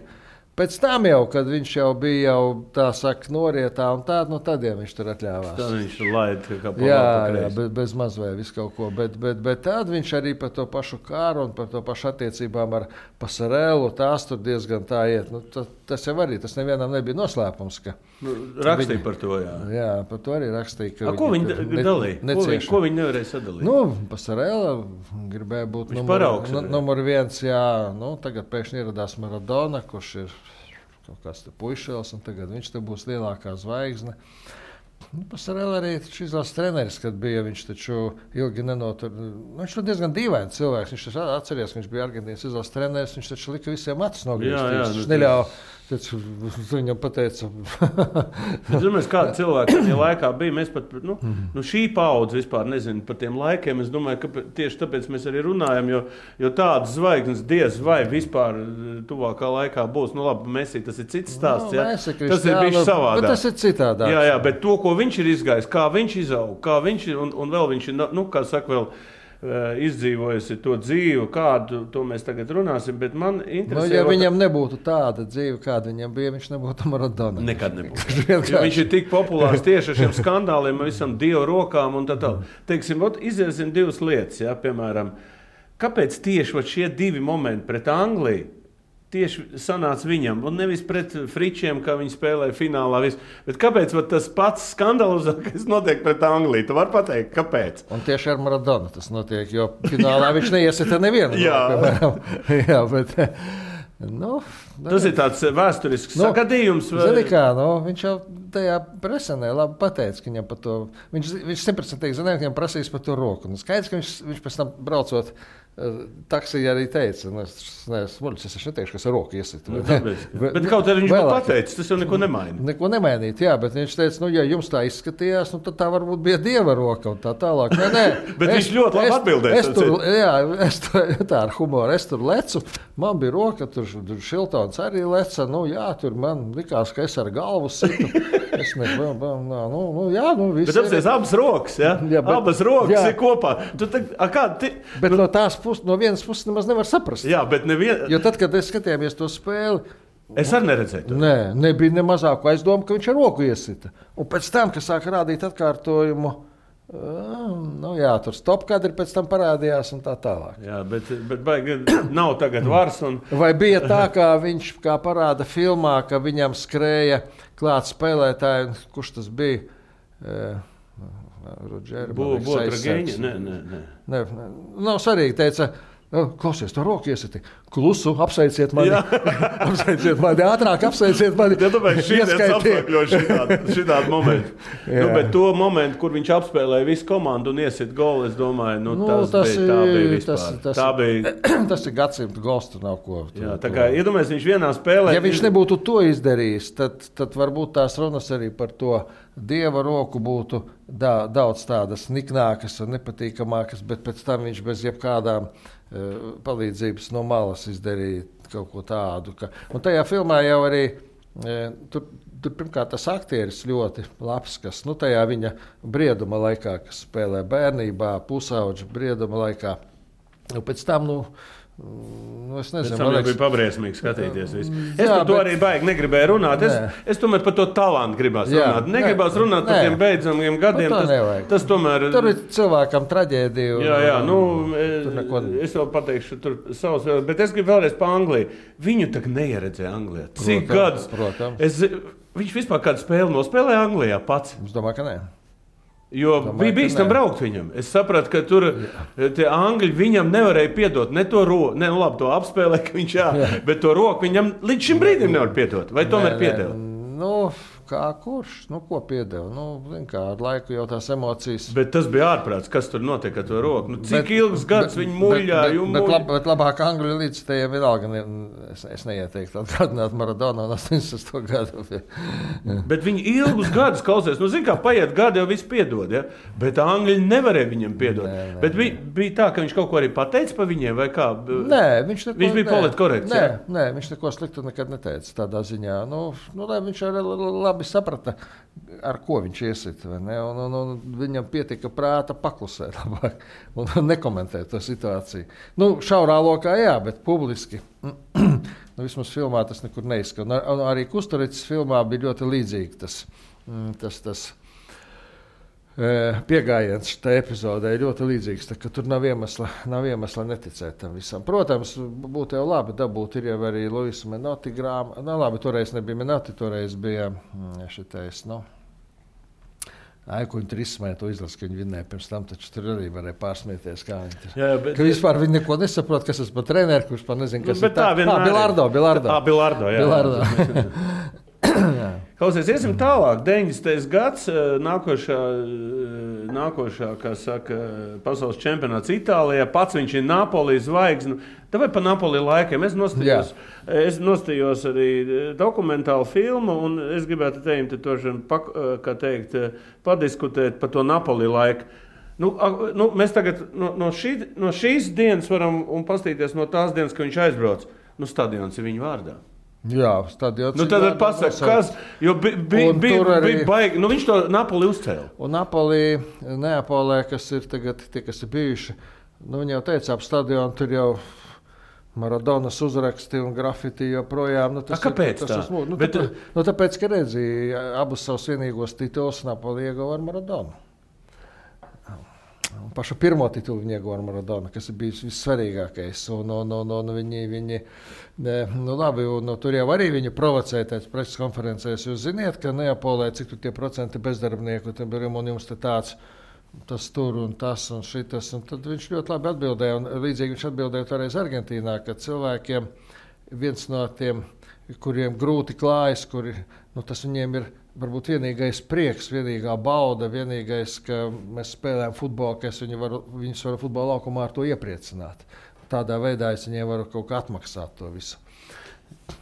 Pēc tam jau, kad viņš jau bija tā saka, norietā un tā, tad jau viņš tur atļāvās. Tad viņš laida kā jā, bez maz vai visu kaut ko. Bet tad viņš arī par to pašu kāru un par to pašu attiecībām ar Pasarelu, tās tur diezgan tā iet. Tas jau arī, tas nevienam nebija noslēpums. Rakstīja par to, jā. Jā, par to arī rakstīja. Ko viņi dalīja? Ko viņi nevarēja sadalīt? Pasarela gribēja būt numur 1, jā. Tagad pēkšņi ieradās Maradona, kurš ir kaut kāds puišēls, un tagad viņš te būs lielākā zvaigzne. Pasarēl arī šis izlases treneris, kad bija, viņš taču ilgi nenotur. Viņš ir diezgan dīvains cilvēks. Viņš atceries, ka viņš bija Argentīnas izlases treneris. Viņš taču lika visiem acis nogriezt. Viņš neļauj. Viņam pateica. Es domāju, kāda cilvēka tajā laikā bija. Mēs pat, šī paudze vispār nezinu par tiem laikiem. Es domāju, ka tieši tāpēc mēs arī runājam, jo tādas zvaigznes diez vai vispār tuvākā laikā būs. Labi, Messi, tas ir cits stāsts. Tas ir bijis savādāk. Tas ir citādāk. Jā, bet to, ko viņš ir izgājis, kā viņš izaug, kā viņš ir, un vēl viņš ir, kā saka, vēl izdzīvojusi to dzīvi, kādu to mēs tagad runāsim, bet man interesē... ja viņam nebūtu tāda dzīve, kāda viņam bija, viņš nebūtu Maradona. Nekad nebūtu. Viņš ir tik populārs tieši ar šiem skandāliem, visam Dievu rokām un tā. Teiksim, iziesim divas lietas, piemēram, kāpēc tieši šie divi momenti pret Angliju tieši sanāca viņam, un nevis pret Fričiem, kā viņi spēlēja finālā. Bet kāpēc tas pats skandalozākais notiek pret Angliju? Tu vari pateikt, kāpēc? Un tieši ar Maradonu tas notiek, jo finālā viņš neiesita nevienu. Jā, bet... tas ir tāds vēsturisks sagadījums. Zini kā, viņš jau tajā presenē labi pateica, ka viņam par to... Viņš 100% zināja, ka viņam prasīs par to roku. Skaidrs, ka viņš pēc tam braucot taksija arī teica, es neteikšu, kas ar roku iesita. Bet kaut arī viņš vēl pateica, tas jau neko nemaina. Neko nemainīt, jā, bet viņš teica, ja jums tā izskatījās, tad tā varbūt bija Dieva roka un tā tālāk. Nē, bet viņš ļoti labi atbildēja. Tā ar humoru, es tur lecu, man bija roka, tur Šiltons arī leca, tur man likās, ka es ar galvu situ. Es viss. Bet apsies abas rokas, abas rokas ir kopā. Bet no vienas puses nemaz nevar saprast. Jā, bet jo tad, kad es skatījāmies to spēli, es arī neredzēju to. Nebija ne mazāko aizdomu, ka viņš ar roku iesita. Un pēc tam, kad sāka rādīt atkārtojumu, tur stop kadri pēc tam parādījās un tā tālāk. Jā, bet baigi nav tagad vars. Vai bija tā, kā viņš kā parāda filmā, ka viņam skrēja klāt spēlētāji, kurš tas bija? Botrageņa? Nē. Nav svarīgi, teica, klausies, to roku iesiti. Klusu, apsveiciet mani. Apsveiciet mani, ātrāk apsveiciet mani. Šitien apsveikļoju šitādu momentu. Bet to momentu, kur viņš apspēlēja visu komandu un iesit golu, es domāju, tas bija vispār. Tas ir gadsimta gols, tur nav ko. Jā, tā kā iedomājies, viņš vienā spēlē... Ja viņš nebūtu to izdarījis, tad varbūt tās runas arī par to Dieva roku būtu daudz tādas niknākas un nepatīkamākas, bet pēc tam viņš bez jebkādām palīdzības no malas izdarīja kaut ko tādu. Un tajā filmā jau arī tur pirmkārt tas aktieris ļoti labs, kas tajā viņa brieduma laikā, kas spēlē bērnībā, pusauģa brieduma laikā. Pēc tam, es nezinu, man liekas, bija pabriesmīgi skatīties. Es par to arī baigi negribēju runāt. Es tomēr par to talantu gribās runāt. Negribās runāt par tiem beidzamiem gadiem. Tas tomēr... Tur ir cilvēkam traģēdiju. Jā, es vēl pateikšu tur savus, bet es gribu vēlreiz par Angliju. Viņu tak neieredzēja Anglijā. Cik gadus? Viņš vispār kādu spēli nospēlēja Anglijā pats? Es domāju, ka nē. Jo bija bīstam braukt viņam. Es sapratu, ka tur tie angļi viņam nevarēja piedot ne to roku, to apspēlē, ka viņš bet to roku viņam līdz šim brīdim nevar piedot. Vai tomēr piedeva? Kā kurš? Ko piedeva? Kā ar laiku jau tās emocijas. Bet tas bija ārprāts, kas tur notiek ar to roku. Cik ilgs gads viņi muļāja? Bet labāk Angļu līdzstējiem vienalga. Es neieteiktu atgādināt Maradonu 80. gadu. Bet viņi ilgus gadus klausies. Zin kā, paiet gadi jau viss piedod. Ja? Bet Angļi nevarēja viņam piedot. Bet bija tā, ka viņš kaut ko arī pateica pa viņiem vai kā? Nē, viņš bija politkorekts. Nē, viņš neko sliktu nekad neteica tādā ziņā. Viņš arī labi saprata, ar ko viņš iesita. Un viņam pietika prāta paklusēt labāk un nekomentēt to situāciju. Šaurā lokā jā, bet publiski. Vismaz filmā tas nekur neizskan. Arī Kusturicas filmā bija ļoti līdzīgi tas piegājiens šitā epizodē ļoti līdzīgs, ka tur nav iemesla neticēt tam visam. Protams, būtu jau labi dabūt, ir jau arī Luisa Menotti grāmata. Labi, toreiz nebija Menotti, toreiz bija šitais, Aikuņu trismē to izlas, ka viņi vinnēja pirms tam, taču tur arī varēja pārsmieties, kā viņi tur. Ka vispār viņi neko nesaprot, kas tas par treneru, kurš par nezinu, kas ir tā. Bilardo, jā. Klausies, iesim tālāk. 90. gads, nākošā, kā saka, pasaules čempionāts Itālijā. Pats viņš ir Napoli zvaigzne. Vai pa Napoli laikiem? Es nostājos arī dokumentālu filmu, un es gribētu padiskutēt par to Napoli laiku. Mēs tagad no šīs dienas varam paskatīties no tās dienas, kad viņš aizbrauc. Stadions ir viņa vārdā. Jā, stadions. Tad pasaka, kas, jo bija baigi, viņš to Napoli uzcēla. Un Napoli, Neapolē, kas ir tagad tie, kas ir bijuši, viņi jau teica, ap stadionu tur jau Maradonas uzraksti un grafiti joprojām. Kāpēc tā? Tāpēc, ka redzīja abus savus vienīgos titulus Napoli ieguva ar Maradonu. Pašu pirmo titulu viņa ieguva ar Maradonu, kas ir bijis vissvarīgākais. Tur jau arī viņu provocēja tāds preses konferencēs. Jūs ziniet, ka Neapolē, cik tur tie procenti bezdarbnieku, un jums te tāds, tas tur un tas un šitas. Un tad viņš ļoti labi atbildēja, un līdzīgi viņš atbildēja toreiz Argentīnā, ka cilvēkiem viens no tiem, kuriem grūti klājas, tas viņiem ir varbūt vienīgais prieks, vienīgā bauda, vienīgais, ka mēs spēlējam futbolu, ka viņus varu futbola laukumā ar to iepriecināt. Tādā veidā es viņiem varu kaut kā atmaksāt to visu.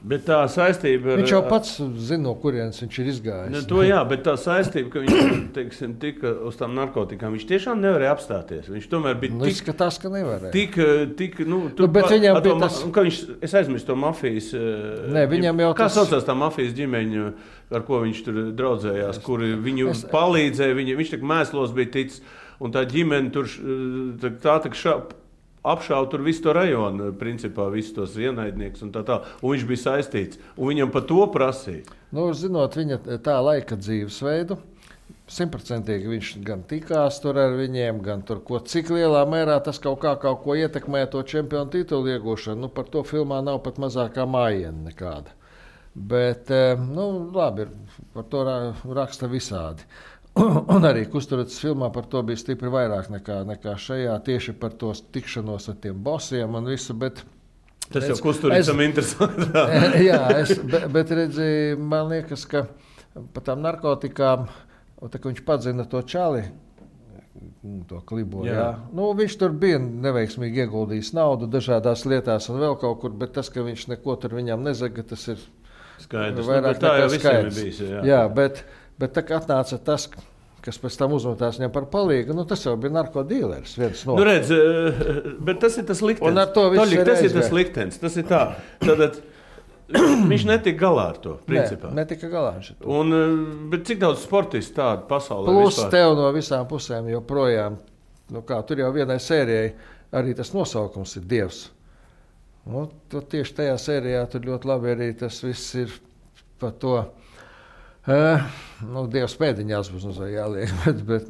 Bet tā saistība viņš jau pats zina, no kurienes viņš ir izgājis. Bet tā saistība, ka viņš tika uz tām narkotikām, viņš tiešām nevarēja apstāties. Viņš tomēr bija izskatās, ka nevarēja. Bet viņam bija tas... Es aizmirstu to mafijas... viņam jau kā saucās tā mafijas ģimeņa, ar ko viņš tur draudzējās, kuri viņu palīdzēja, viņš tik mēslos bija ticis, un tā ģimene tur apšauja tur visu to rajonu, principā visus tos ienaidniekus un tā. Un viņš bija saistīts, un viņam par to prasīja. Zinot viņa tā laika dzīvesveidu, 100% viņš gan tikās tur ar viņiem, gan tur, cik lielā mērā tas kaut ko ietekmē to čempionu titulu iegūšanu. Par to filmā nav pat mazākā mājiena nekāda. Bet, labi, par to raksta visādi. Un arī Kusturidzes filmā par to bija stipri vairāk nekā šajā, tieši par to tikšanos ar tiem bosiem un visu. Tas jau Kusturidzam interesanti. bet redzi, man liekas, ka par tām narkotikām, tā, viņš padzina to čali, to klibo, viņš tur bija neveiksmīgi ieguldījis naudu dažādās lietās un vēl kaut kur, bet tas, ka viņš neko tur viņam nezaga, tas ir skaidrs. Vairāk tā jau visiem ir bijis. Bet tā kā atnāca tas, kas pēc tam uzmetās viņam par palīgu, tas jau bija narkodīleris. Bet tas ir tas liktenis. Tas ir tas liktenis. Tas ir tā. Tad viņš netika galā ar to, principā. Netika galā ar to. Bet cik daudz sportistu tādu pasaulē plus vispār? Tev no visām pusēm joprojām, tur jau vienai sērijai arī tas nosaukums ir Dievs. Tieši tajā sērijā tur ļoti labi arī tas viss ir par to. Dievs pēdiņās būs jāliek, bet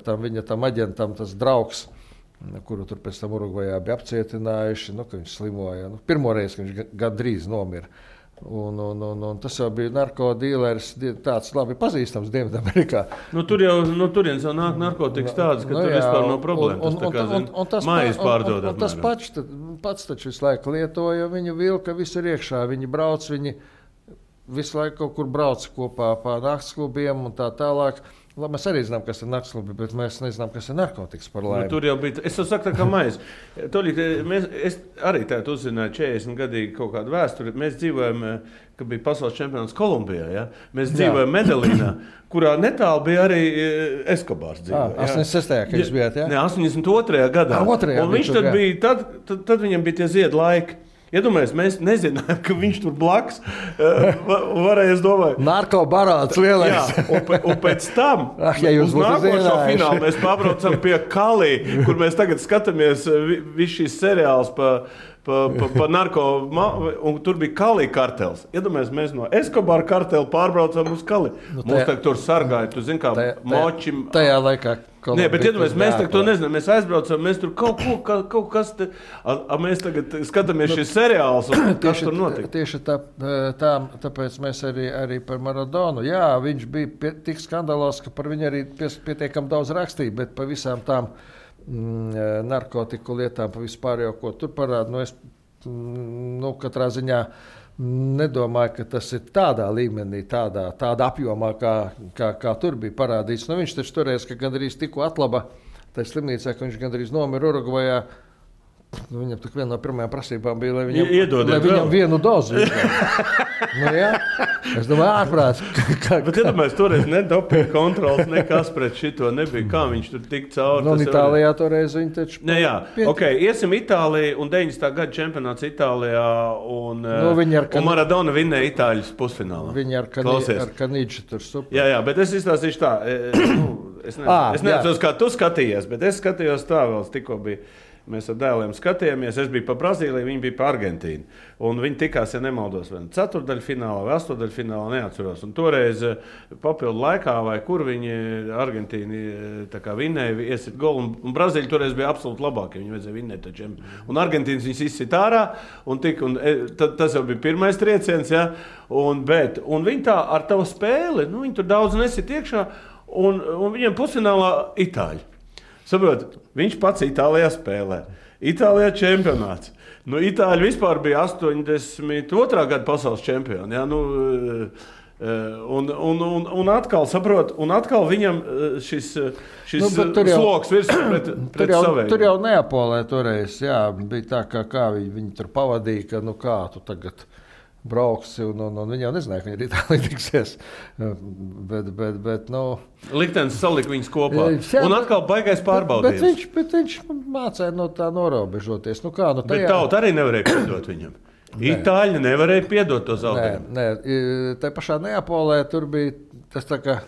tur viņa tam aģentam tas draugs, kuru tur pēc tam Urugvajā bija apcietinājuši, ka viņš slimoja. Pirmo reizi, ka viņš gandrīz nomira. Un tas jau bija narkodīleris, tāds labi pazīstams Dienvidamerikā. Tur jau no turienes jau nāk narkotikas tādas, ka tur vispār nav problēma. Tas mājas pārdodam. Un tas pats taču visu laiku lietoja, viņu vilka visur iekšā, viņi brauc, visu laiku kaut kur brauc kopā pa naktsklubiem un tā tālāk. Mēs arī zinām, kas ir naktsklubi, bet mēs nezinām, kas ir narkotikas par laimi. Tur jau bija, es jau saku tā kā maize. Es arī tādu uzzināju 40 gadīgi kaut kādu vēsturi. Mēs dzīvojam, kad bija pasaules čempionāts Kolumbijā. Ja? Mēs dzīvojam Medellīnā, kurā netālu bija arī Eskobārs dzīvoja. 86. kad jūs bijāt, jā? Ne, 82. gadā. Un viņš tad bija, tad viņam bija tie ziedu laiki. Iedomājies, mēs nezinājām, ka viņš tur blakus varēja, es domāju... Narkobarāts lielais. Jā, un pēc tam, uz nākošo finālu, mēs pabraucam pie Kalī, kur mēs tagad skatāmies visu šīs seriāls pa narko, un tur bija Kalī kartels. Iedomājies, mēs no Eskobara kartela pārbraucam uz Kalī. Mums tagad tur sargāja, tu zini, kā močim... Tajā laikā... Nē, bet iedomājies, mēs tagad to nezinām, mēs aizbraucam, mēs tur kaut kas te... Mēs tagad skatāmies šis seriāls, un kas tur notika? Tieši tāpēc mēs arī par Maradonu. Jā, viņš bija tik skandalos, ka par viņu arī pietiekam daudz rakstīja, bet pa visām tām narkotiku lietām, pa vispār jau, ko tur parāda, katrā ziņā nedomāju, ka tas ir tādā līmenī, tādā apjomā, kā tur bija parādīts. Nu, viņš taču toreiz, ka gandrīz tikko atlaba tajā slimnīcā, ka viņš gandrīz nomira Urugvajā. Nu, viņam tik viena no pirmajām prasībām bija, lai viņam vienu dozu. Nu, jā. Es domāju, ārprāts. Bet iedomājies, toreiz ne dopinga kontrols, nekas pret šito nebija. Kā viņš tur tik cauri? Nu, Itālijā toreiz viņi taču... Jā, ok, iesim Itāliju un 90. gada čempionāts Itālijā un Maradona vinnēja Itāļus pusfinālā. Viņi ar Kanīču tur super. Jā, bet es izstāstīšu tā. Es neatceros, kā tu skatījies, bet es skatījos tā vēl, tikko bija. Mēs ar dēliem skatījāmies. Es biju pa Brazīliju, viņi bija pa Argentīnu. Un viņi tikās, ja nemaldos, vai ceturdaļfinālā vai astodaļfinālā, neatceros. Un toreiz papildu laikā, vai kur viņi Argentīni vinnēja, iesit golu. Un Brazīļi toreiz bija absolūti labākie. Viņi vajadzēja vinnēt taču. Un Argentīnas viņus izsit ārā. Tas jau bija pirmais trieciens. Ja? Un viņi tā ar tavu spēli, viņi tur daudz nesit iekšā. Un viņiem pusfinālā Itāļi. Saprot, viņš pats Itālijā spēlē. Itālijā čempionāts. Itāļi vispār bija 82. gada pasaules čempioni. Ja? Un atkal, saprot, atkal viņam šis sloks virsū pret saviem. Tur jau Neapolē toreiz, jā, bija tā, kā viņi tur pavadīja, ka kā tu tagad brauksi, un viņi jau nezināja, ka viņi ir Itālijā tiksies. Bet liktenis salika viņus kopā. Un atkal baigais pārbaudījums. Bet viņš mācēja no tā norobežoties. Bet tauta arī nevarēja piedot viņam. Itāļi nevarēja piedot to zaudējumu. Nē, tā pašā Neapolē tur bija tas tā kā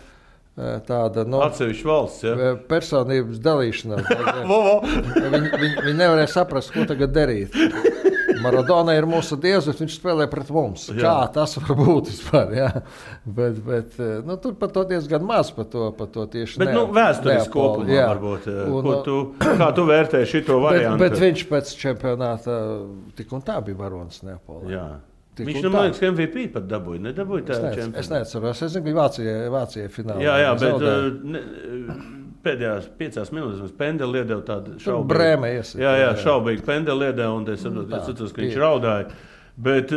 tāda atsevišķa valsts, ja? Personības dalīšanās. Viņi nevarēja saprast, ko tagad darīt. Maradona ir mūsu dievs, bet viņš spēlē pret mums. Jā. Kā tas var būt vispār? Jā. Bet tur par to diezgan maz par to tieši. Bet vēsturiski kopumā varbūt. Kā tu vērtēji šito variantu? Bet viņš pēc čempionāta tik un tā bija varonis Neapolē. Jā. Viņš man liekas, ka MVP pat dabūja. Nedabūja tā čempionāta. Es neatceros. Es zinu, ka Vācijai finālā. Jā, bet pēdējās 5 minūtēs pendeli iedeva tādu šaubīgu. Brēmē iesaka. Jā, šaubīgi pendeli iedeva, un es saprotu, ka viņš raudāja. Bet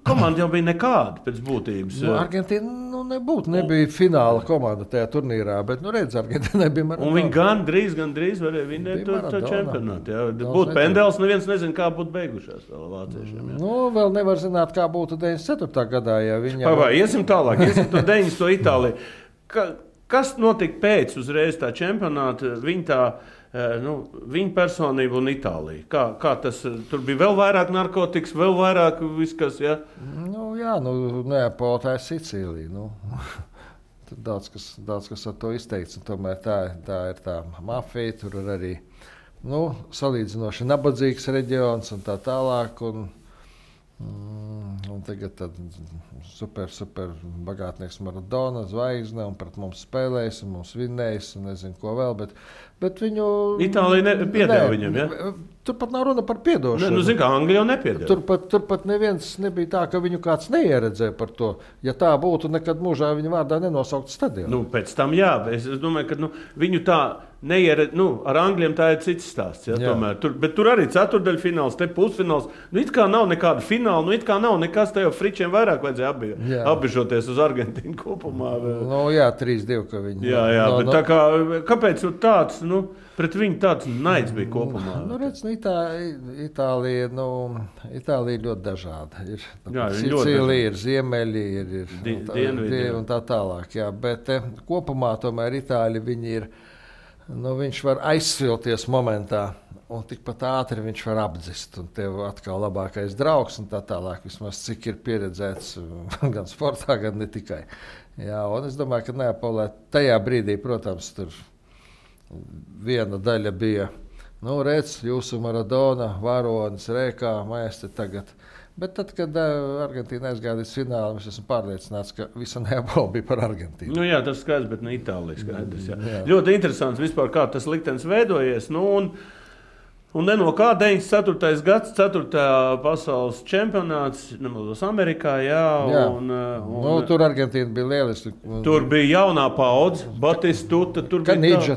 komanda jau bija nekāda pēc būtības. Argentīna nebija fināla komanda tajā turnīrā, bet redz, Argentīnai bija Maradona. Un viņi gandrīz varēja vinnēt to čempionātu. Būtu pendels, neviens nezina, kā būtu beigušās vēl vāciešiem. Vēl nevar zināt, kā būtu 94. gadā, ja viņa... Iesim tālāk, iesim to 90. Itāliju. Kas notika pēc uzreiz tā čempionāta, viņa personība un Itālija? Kā tas, tur bija vēl vairāk narkotikas, vēl vairāk viskas, ja? Neapolē tā ir Sicīlija. Tur daudz kas ar to izteikts, un tomēr tā ir tā mafija, tur ir arī, salīdzinoši nabadzīgs reģions un tā tālāk, un tagad super bagātnieks Maradona, zvaigzne, un pret mums spēlējis, un mums vinnējis, un nezinu, ko vēl, bet viņu... Itālija piedeva viņam, ja? Turpat nav runa par piedošanu. Zinu, kā Anglija jau nepiedeva. Turpat neviens nebija tā, ka viņu kāds neieredzēja par to. Ja tā būtu, nekad mūžā viņa vārdā nenosaukt stadionu. Pēc tam jā, es domāju, ka viņu tā ar Angļiem tā ir cits stāsts. Ja, bet tur arī ceturdaļfināls, te pusfināls. It kā nav nekāda fināla, it kā nav nekas, te jau fričiem vairāk vajadzēja apbežoties uz Argentīnu kopumā. 3-2, ka viņi... Jā, bet tā kā, kāpēc tāds, pret viņu tāds naids bija kopumā? Itālija ļoti dažāda. Ir Sicīlija, ir ziemeļi, ir dienvidi un tā tālāk. Jā, bet kopumā tomēr Itāļi viņi ir... viņš var aizsvilties momentā, un tikpat ātri viņš var apdzist. Un tev atkal labākais draugs, un tā tālāk, vismaz cik ir pieredzēts gan sportā, gan ne tikai. Jā, un es domāju, ka Neapolē tajā brīdī, protams, tur viena daļa bija, redz, jūsu Maradona, varonis, rēkā, maestri tagad. Bet tad, kad Argentīna aizgāja līdz finālam, es esmu pārliecināts, ka visa Neapole bija par Argentīnu. Tas skaidrs, bet ne Itālija skaidrs. Jā. Ļoti interesants vispār, kā tas liktenis veidojies. Un no kā 94. gads, 4. pasaules čempionāts, nemaldos Amerikā, jā. Tur Argentīna bija lieliski. Tur bija jaunā paudze, Batistuta, tur Kanīdža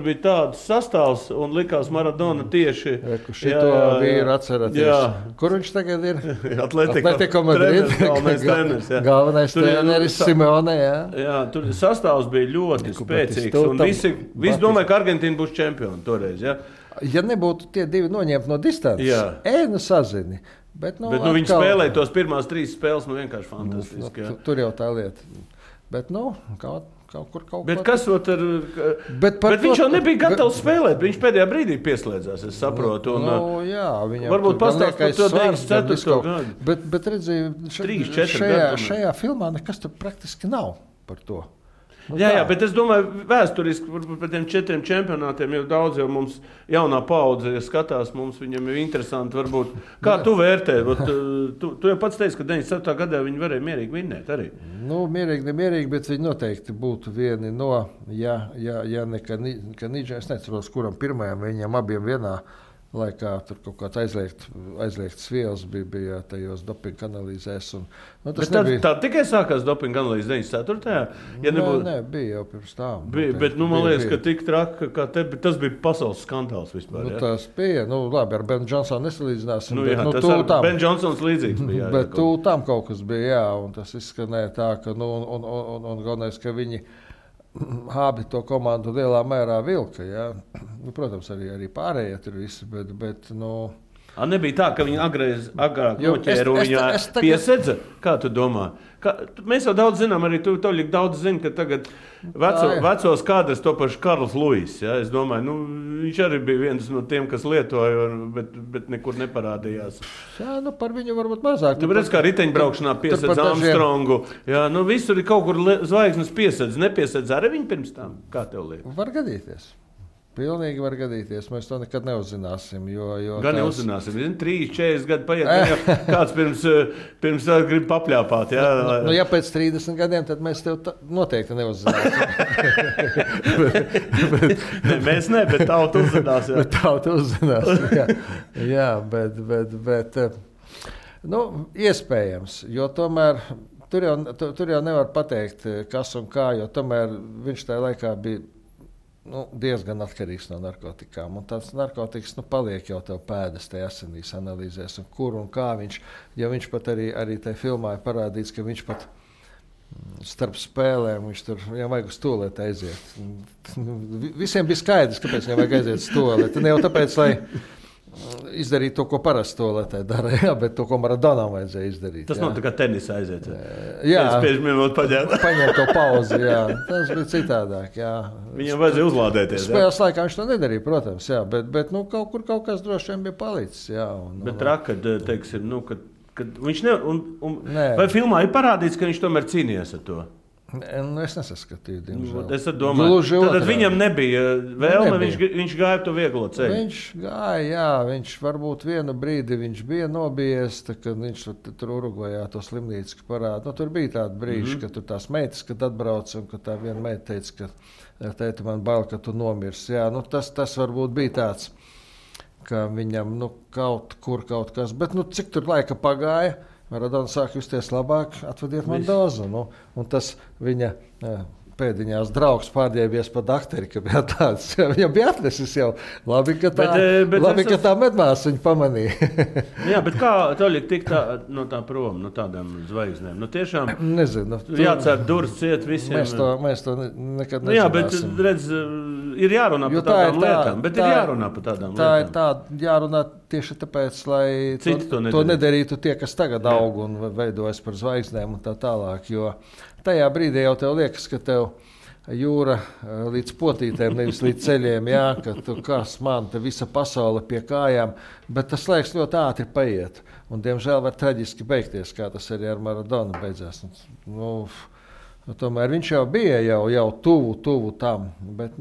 bija tāds sastāvs, un likās Maradona tieši. Šito vīru atceraties. Kur viņš tagad ir? Atletico Madrid. Galvenais treneris Simeone, jā. Jā, tur sastāvs bija ļoti spēcīgs, un visi domāja, ka Argentīna būs čempioni toreiz, jā. Ja nebūtu tie divi noņemti no distances, sazini. Bet viņi spēlēja tos pirmās 3 spēles, vienkārši fantastiski. Tur jau tā lieta. Bet, kaut kur. Bet kas ar... Bet viņš jau nebija gatavs spēlēt. Viņš pēdējā brīdī pieslēdzās, es saprotu. Varbūt pastāst par to 94. gadu. Bet redzīju, šajā filmā nekas tur praktiski nav par to. Jā, bet es domāju, vēsturiski par tiem 4 čempionātiem jau daudz jau mums jaunā paudze skatās, viņam ir interesanti varbūt. Kā tu vērtē? Tu jau pats teici, ka 97. gadā viņi varēja mierīgi vinnēt arī. Nemierīgi, bet viņi noteikti būtu vieni no, ja ne Kanīdža, es neceros, kuram pirmajam viņam abiem vienā laikā tur kaut kāds aizliegts vielas bija tajos dopinga analīzēs. Tā tikai sākās dopinga analīze 94. Nē, bija jau pirms tām. Bet man liekas, ka tik traki, kā te, tas bija pasaules skandāls vispār. Tas bija, labi, ar Ben Johnsonu nesalīdzināsim. Tas ar Ben Johnsons līdzīgs bija. Bet tam kaut kas bija, un tas izskanēja tā, ka, un galvenais, ka viņi abi to komandu lielā mērā vilka. Ja? Protams, arī pārējie tur visi, bet nebija tā, ka viņi agrāk noķēra un viņā piesedza? Kā tu domā? Mēs jau daudz zinām, arī tu daudz zini, ka tagad vecos kādreiz to pašu Karls Luis. Ja? Es domāju, viņš arī bija viens no tiem, kas lietoja, bet nekur neparādījās. Jā, par viņu varbūt mazāk. Redz, kā riteņbraukšanā piesedz Armstrongu. Jā, visur ir kaut kur zvaigznes piesedz. Nepiesedz arī viņi pirms tam. Kā tev liekas? Var gadīties. Pilnīgi var gadīties. Mēs to nekad neuzzināsim. Gan neuzzināsim. 3-40 gadi paiet. Kāds pirms grib papļāpāt. Jā? Ja pēc 30 gadiem, tad mēs tev noteikti neuzzināsim. Mēs ne, bet tauta uzzinās. Bet tauta uzzinās. Jā, bet iespējams. Jo tomēr tur jau nevar pateikt, kas un kā, jo tomēr viņš tajā laikā bija diezgan atkarīgs no narkotikām. Un tāds narkotikas paliek jau tev pēdas tajā asinīs analīzēs, un kur un kā viņš, ja viņš pat arī tajā filmā ir parādīts, ka viņš pat starp spēlēm, viņš tur, viņam vajag uz tualeti aiziet. Visiem bija skaidrs, kāpēc viņam vajag aiziet uz tualeti. Ne jau tāpēc, lai izdarīt to, ko parasti tualetē dara, bet to, ko Maradonam vajadzēja izdarīt. Tas nav tā kā tenisā aiziet. Jā, paņemt to pauzi, jā. Tas bija citādāk, jā. Viņam vajadzēja uzlādēties. Spēles laikā viņš to nedarīja, protams, jā, bet kaut kas droši vien bija palicis, jā. Bet rakad, teiksim, kad viņš vai filmā ir parādīts, ka viņš tomēr cīnījās ar to? Es nesaskatīju, diemžēl. Es domāju, tad viņam nebija vēlme, viņš gāja to vieglo ceļu. Viņš gāja, jā, viņš varbūt vienu brīdi viņš bija nobijies, kad viņš tur Urugvajā to slimnīcu parāda. Tur bija tādi brīži, ka tur tās meitas, kad atbrauc, un ka tā viena meita teica, ka tēti man bail, ka tu nomirsi. Jā, tas varbūt bija tāds, ka viņam kaut kas, bet cik tur laika pagāja, Maradona sāk justies labāk, atvediet man dozu. Un tas viņa pēdiņās draugs pārģērbies pa dakteri, ka bija tāds. Viņam bija atnesis jau. Labi, ka tā medmās viņu pamanīja. Jā, bet kā Toļik tik no tā prom, no tādām zvaigznēm? Tiešām nezinu. Jācer durvis ciet visiem. Mēs to nekad nezināsim. Jā, bet redz, ir jārunā par tādām lietām. Bet ir jārunā par tādām lietām. Tā ir jārunā tieši tāpēc, lai to nedarītu tie, kas tagad aug un veidojas par zvaigznēm un tā tālāk. Jo tajā brīdī jau tev liekas, ka tev jūra līdz potītēm, nevis līdz ceļiem, jā, ka tu kas man, te visa pasaule pie kājām, bet tas laiks ļoti ātri paiet. Un, diemžēl, var traģiski beigties, kā tas arī ar Maradonu beidzās. Tomēr viņš jau bija jau tuvu tam, bet,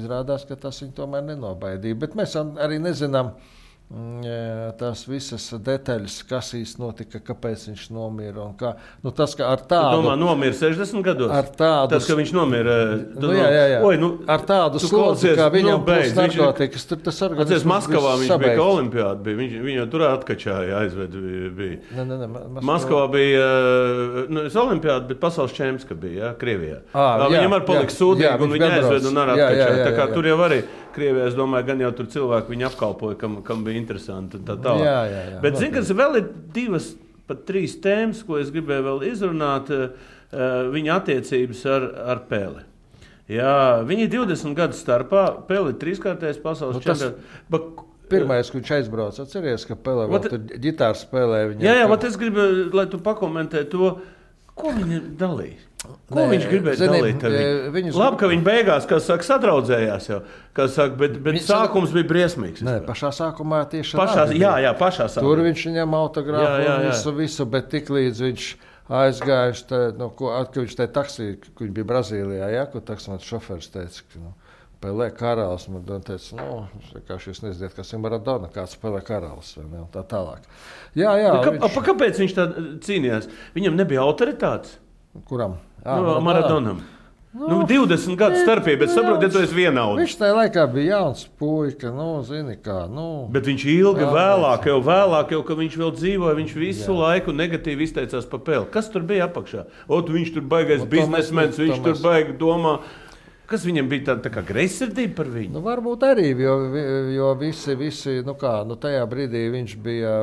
izrādās, ka tas viņu tomēr nenobaidīja. Bet mēs arī nezinām, tās visas detaļas, kas īsti notika, kāpēc viņš nomira un kā. Nu, tas, ka ar tādu... Tu domā, nomira 60 gados? Ar tādu... Tas, ka viņš nomira... Jā. Oi, ar tādu slodzi, kā viņam būs narkotikas, tur tas organisms... Atceries, Maskavā viņš bija, ka olimpiāda bija. Viņš jau tur atkačāja, aizved bija. Maskavā bija, es olimpiāda, bet pasaules čemps, ka bija, jā, Krievijā. Viņam ar palika sūdīgi, un viņi aizved un ar atkačāja. Tā kā tur jau arī... Krievijā, es domāju, gan jau tur cilvēki viņu apkalpoja, kam bija interesanti. Jā. Bet, zini, kas vēl ir 2, pat 3 tēmas, ko es gribēju vēl izrunāt, viņa attiecības ar Peli. Jā, viņi 20 gadu starpā, Peli 3-kārtais pasaules čempions. Pirmais, kad viņš aizbrauca, atceries, ka Pele vēl tur ģitāru spēlē. Jā, bet es gribu, lai tu pakomentē to, ko viņi dalīja. Ko viņš gribēja dalīt ar viņu? Labi, ka viņi beigās, kā saka, sadraudzējās jau, bet sākums bija briesmīgs. Nē, pašā sākumā tieši pašā sākumā. Tur viņš viņam autogrāfu visu, bet tik līdz viņš aizgājuši, kad viņš tajā taksī, kad viņš bija Brazīlijā, kur taksmats šoferis teica, ka Pelē karalis, man teica, vienkārši jūs neziniet, kas ir Maradona, kāds Pelē karalis, vai ne, un tā tālāk. Jā. Kāpēc viņš tā cīnījās? Viņam nebija autoritātes? Kuram? Maradonam. 20 gadu starpība, bet saprotiet, tu esi vienauds. Viņš tajā laikā bija jauns puika, zini kā. Bet viņš ilgi vēlāk, ka viņš vēl dzīvoja, viņš visu laiku negatīvi izteicās par Peli. Kas tur bija apakšā? Viņš tur baigais biznesmens, viņš tur baigi domā. Kas viņam bija tā kā greizsirdība par viņu? Varbūt arī, jo visi tajā brīdī viņš bija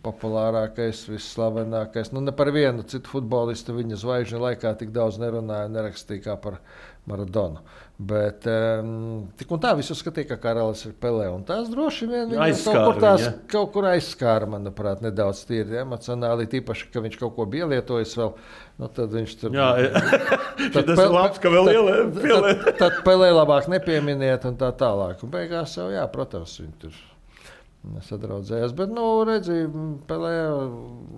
populārākais, visslavenākais. Ne par vienu citu futbolistu viņa zvaigžņu laikā tik daudz nerunāja, nerakstīja kā par Maradonu. Bet tik un tā visu skatīja, ka karalis ir Pelē. Un tās droši vien kaut kur aizskāra, manuprāt, nedaudz tīri emocionāli, tīpaši, ka viņš kaut ko bija lietojis vēl. Tad viņš tur... Jā. Tas ir labs, ka vēl pielē. Tad Pelē labāk nepieminiet un tā tālāk. Un beigās jau, protams, viņi tur... sadraudzējās, bet, redzi, Pelē,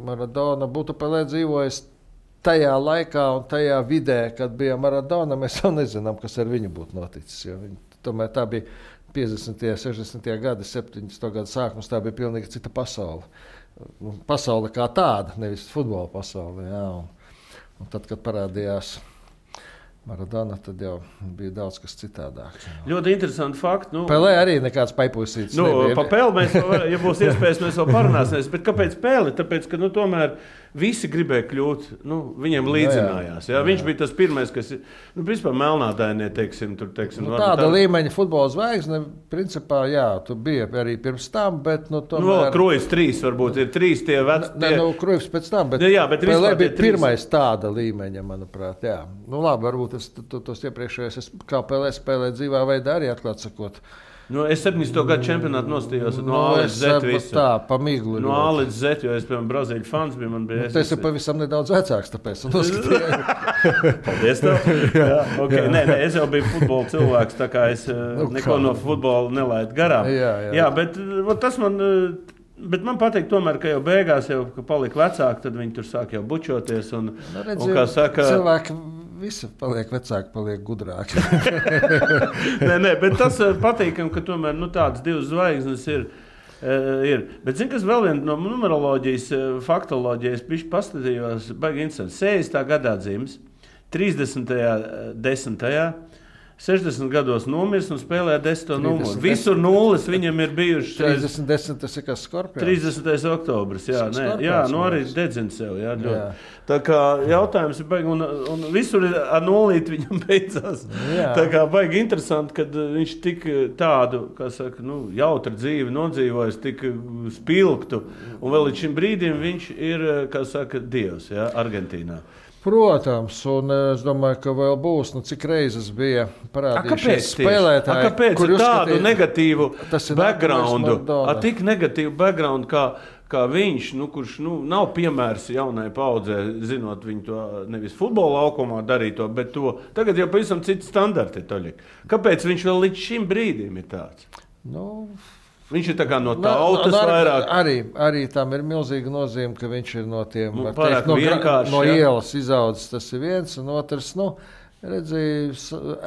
Maradona būtu Pelē dzīvojis tajā laikā un tajā vidē, kad bija Maradona, mēs jau nezinām, kas ar viņu būtu noticis. Tomēr tā bija 50. 60. gadi, 70. gadu sākums, tā bija pilnīgi cita pasaule. Pasaule kā tāda, nevis futbola pasaule. Jā. Un tad, kad parādījās Maradona, tad jau bija daudz kas citādāk. Ļoti interesanti fakti. Pelē arī nekāds paipusīts nebija. Pa Peli mēs, ja būs iespējas, mēs vēl parunāsimies. Bet kāpēc Peli? Tāpēc, ka tomēr visi gribēja kļūt, viņiem līdzinājās. Jā. Viņš bija tas pirmais, kas, principā melnādainie, teiksim. Tāda līmeņa futbola zvaigzne, principā, tu bija arī pirms tam, bet, tomēr... Krujs 3 varbūt ir 3 tie veci. Krujs pēc tam, bet Pelē bija pirmais tāda līmeņa, manuprāt, jā. Labi, varbūt tos iepriekšējos, kā Pelē spēlē dzīvā veidā arī atklāt sakot. Es 70. gadu čempionātu nostījos no A līdz Z visu. Tā, pa miglu. No A līdz Z, jo es, piemēram, Brazīļu fans biju. Tas ir pavisam nedaudz vecāks, tāpēc noskatīju. Paldies tev. Okay. Nē, es jau biju futbola cilvēks, tā kā es neko no futbola nelaidu garām. Jā, bet tas man... Bet man patīk tomēr, ka jau beigās, ka palika vecāki, tad viņi tur sāk jau bučoties. Un kā saka... Cilvēki visi paliek vecāki, paliek gudrāki. Nē, bet tas patīkam, ka tomēr tādas 2 zvaigznes ir. Bet zini, kas vēl viena no numeroloģijas, faktoloģijas, bišķi pastatījos, baigi interesanti. 60. gadā dzimis, 30. 10. 60 gados nomirs un spēlē 10. numuru. Visur nulles viņam ir bijuši. 30. tas ir kas Skorpions? 30. oktobris, arī dedzina sev. Jā. Tā kā jautājums ir baigi, un visur ar nulīti viņam beidzās. Jā. Tā kā baigi interesanti, kad viņš tik tādu, kā saka, jautru dzīvi nodzīvojis, tik spilgtu, un vēl līdz šim brīdim viņš ir, kā saka, dievs, Argentīnā. Protams, un es domāju, ka vēl būs, cik reizes bija parādījušies spēlētāji, kāpēc tādu negatīvu backgroundu, tik negatīvu backgroundu, kā viņš, kurš nav piemērs jaunai paudzē, zinot viņu to nevis futbola laukumā darīto, bet to tagad jau pavisam citi standarti. Kāpēc viņš vēl līdz šim brīdim ir tāds? Viņš ir tā kā no tautas vairāk. Arī tam ir milzīga nozīme, ka viņš ir no tiem no ielas izaudzis. Tas ir viens, un otrs,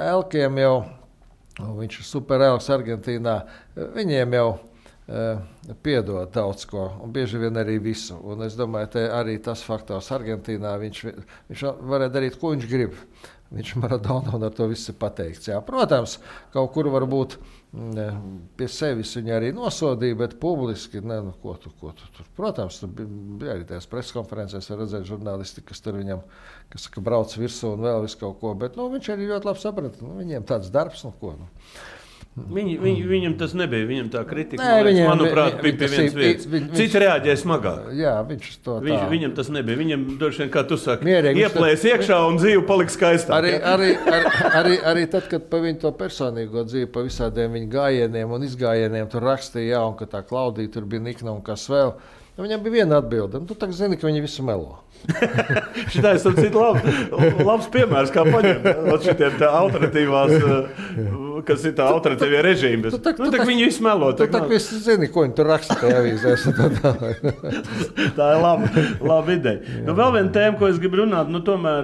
Elkiem jau, viņš ir super elks Argentīnā, viņiem jau piedod daudz ko, un bieži vien arī visu. Un es domāju, ka arī tas faktors Argentīnā, viņš varēja darīt, ko viņš grib. Viņš Maradona un ar to viss ir pateikts. Jā. Protams, kaut kur varbūt pie sevis viņa arī nosodīja, bet publiski, ko tu tur. Protams, tur bija arī tās preskonferencēs, var redzēt žurnālisti, kas tur viņam, kas brauc virsū un vēl visu kaut ko, bet viņš arī ļoti labi saprata, viņiem tāds darbs, ko. Viņam tas nebija, viņam tā kritika, manuprāt, bija pie vienas vietas. Citi reaģēja smagāk. Jā, viņš to tā. Viņam tas nebija, viņam droši vien, kā tu saki, mierīgi, ieplēs iekšā un dzīve paliks skaistāk. Arī tad, kad pa viņu to personīgo dzīvi, pa visādiem viņu gājieniem un izgājieniem tur rakstīja, un ka tā Klaudija tur bija nikna un kas vēl, viņam bija viena atbilde, tu tak zini, ka viņi visu melo. Šitais ir labs piemērs, kā paņemt šitiem tā alternatīvās, kas ir tā alternatīvie režīmi. Viņi visu melo. Tu tak visi zini, ko viņi tur raksta tajā avīzēs. Tā ir laba ideja. Vēl viena tēma, ko es gribu runāt, tomēr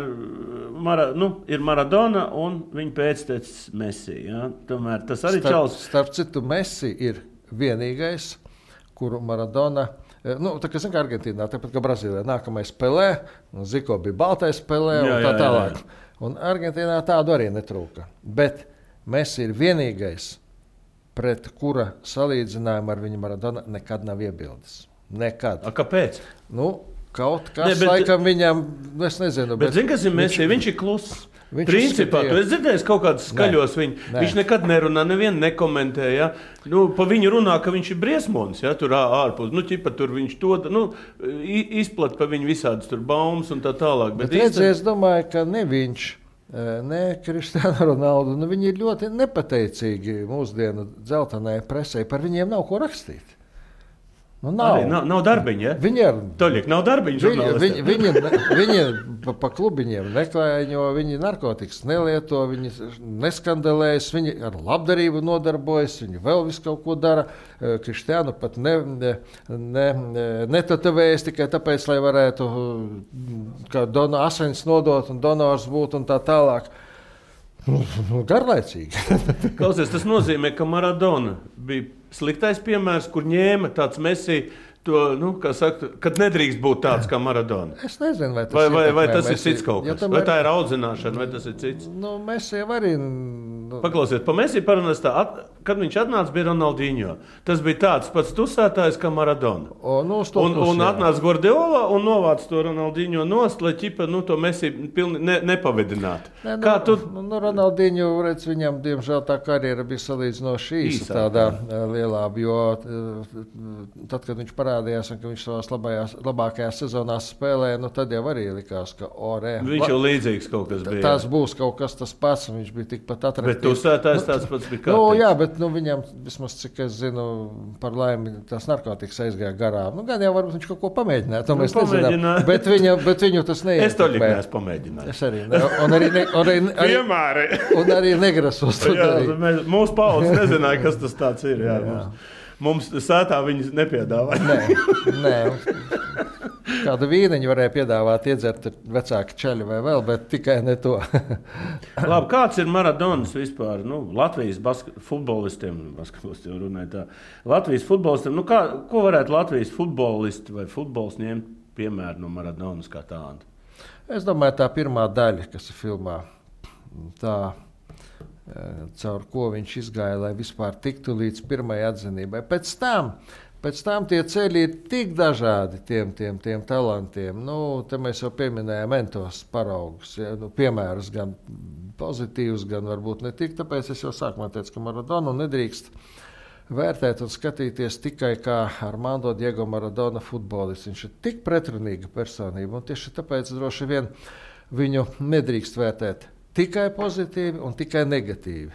ir Maradona un viņa pēctecis Messi. Ja? Tomēr tas arī Starp citu, Messi ir vienīgais, kuru Maradona... tā kā Argentīnā, tāpat kā Brazīlijā, nākamais Pelē, Ziko bija baltais Pelē un tā tālāk. Un Argentīnā tādu arī netrūka. Bet Messi ir vienīgais, pret kura salīdzinājumu ar viņu Maradona nekad nav iebildes. Nekad. Kāpēc? Kaut kas laikam viņam, es nezinu. Bet zini, kas ir Messi? Viņš ir kluss. Principā, tu esi dzirdējis kaut kādus skaļos viņu. Viņš nekad nerunā, nevienu nekomentē. Ja? Pa viņu runā, ka viņš ir briesmonis, ja? Tur ārpus. Tur viņš to izplat pa viņu visādas tur baumas un tā tālāk. Bet es domāju, ka ne viņš, ne Cristiano Ronaldo, viņi ir ļoti nepateicīgi mūsdienu dzeltenai presē. Par viņiem nav ko rakstīt. Nav darbiņa, ja? Toļiek, nav darbiņa žurnālistiem. Viņi pa klubiņiem neklājo, viņi narkotikas nelieto, viņi neskandelējas, viņi ar labdarību nodarbojas, viņi vēl visu kaut ko dara. Kristiānu pat netatavējas tikai tāpēc, lai varētu kā asins nodot un donors būt un tā tālāk. Garlaicīgi. Klausies, tas nozīmē, ka Maradona bija sliktais piemērs, kur ņēma tāds Messi, kad nedrīkst būt tāds kā Maradona. Es nezinu, vai tas ir cits kaut kas. Vai tā ir audzināšana, vai tas ir cits? Messi arī... Paklausiet, pa Messi parunās tā, kad viņš atnāca, bija Ronaldinho. Tas bija tāds pats tusētājs kā Maradona. Un atnāca Guardiola un novāca to Ronaldinho nost, lai ķipa to Messi pilni nepavedinātu. Ronaldinho, redz, viņam, diemžēl, tā karjera bija salīdzinoši īsa tādā lielā, jo tad, kad viņš parādījās un ka viņš savās labākajās sezonās spēlē, tad jau arī likās, ka viņš jau līdzīgs kaut kas bija. Tas būs kaut kas tas pats, un viņš bija tikpat atraktīvs. Bet tusētājs tāds pats bija kārtīgs. Jā, bet viņam, vismaz cik es zinu, par laimi tās narkotikas aizgāja garām. Gan jau varbūt viņš kaut ko pamēģināja, to mēs nezinām. Bet viņu tas neietekmē. Es to neesmu pamēģinājis. Es arī ne. Un arī negrasos to darīt. Mūsu paudze nezināja, kas tas tāds ir. Jā. Mums sētā viņas nepiedāvāja. Nē. Kādu vīniņu varēja piedāvāt, iedzert vecāki čeļi vai vēl, bet tikai ne to. Labi, kāds ir Maradonas vispār? Latvijas futbolistiem runāja tā. Latvijas futbolistiem, ko varētu Latvijas futbolisti vai futbols ņemt piemēru no Maradonas kā tāda? Es domāju, tā pirmā daļa, kas ir filmā, tā caur ko viņš izgāja, lai vispār tiktu līdz pirmajai atzinībai. Pēc tam tie ceļi ir tik dažādi tiem talantiem. Te mēs jau pieminējām entos paraugus, piemērus gan pozitīvus, gan varbūt ne tik. Tāpēc es jau sākumā teicu, ka Maradonu nedrīkst vērtēt un skatīties tikai kā Armando Diego Maradona futbolists. Viņš ir tik pretrunīga personība, un tieši tāpēc droši vien viņu nedrīkst vērtēt tikai pozitīvi un tikai negatīvi.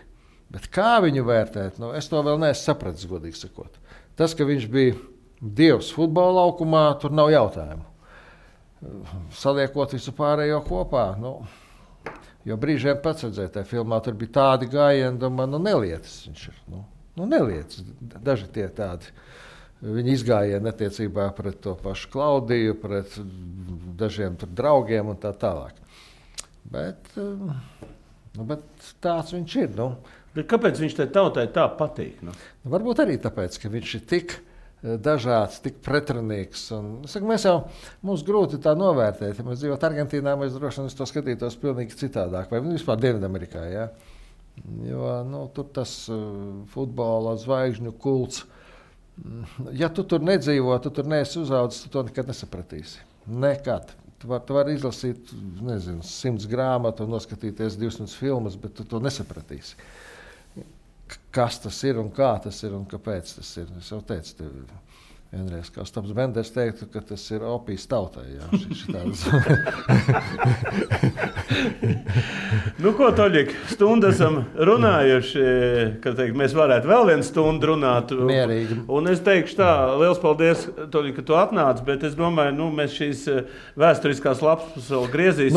Bet kā viņu vērtēt, es to vēl neesmu sapratis, godīgi sakot. Tas, ka viņš bija dievs futbola laukumā, tur nav jautājumu. Saliekot visu pārējo kopā, jo brīžiem pats redzēja, tajā filmā tur bija tādi gājieni, domā, nelietas viņš ir. Nelietas, daži tie tādi. Viņi izgājieni attiecībā pret to pašu Klaudiju, pret dažiem tur draugiem un tā tālāk. Bet Bet tāds viņš ir. Bet kāpēc viņš tai tautai tā patīk? Varbūt arī tāpēc, ka viņš ir tik dažāds, tik pretrunīgs. Mums grūti tā novērtēt. Ja mēs dzīvotu Argentīnā, mēs droši vien to skatītos pilnīgi citādāk. Vai vispār Dienvidamerikā. Ja? Jo tur tas futbola zvaigžņu kults. Ja tu tur nedzīvo, tu tur neesi uzaudzis, tu to nekad nesapratīsi. Nekad. Tu vari izlasīt 100 grāmatu un noskatīties 200 filmas, bet tu to nesapratīsi. Kas tas ir un kā tas ir un kāpēc tas ir. Es jau teicu tev vienreiz, kā Ostaps Benders teiktu, ka tas ir opijas tautai. Ko, Toļik, stundu esam runājuši, ka mēs varētu vēl vienu stundu runāt. Mierīgi. Un es teikšu tā, liels paldies, Toļik, ka tu atnāc, bet es domāju, mēs šīs vēsturiskās lapas vēl griezīsim.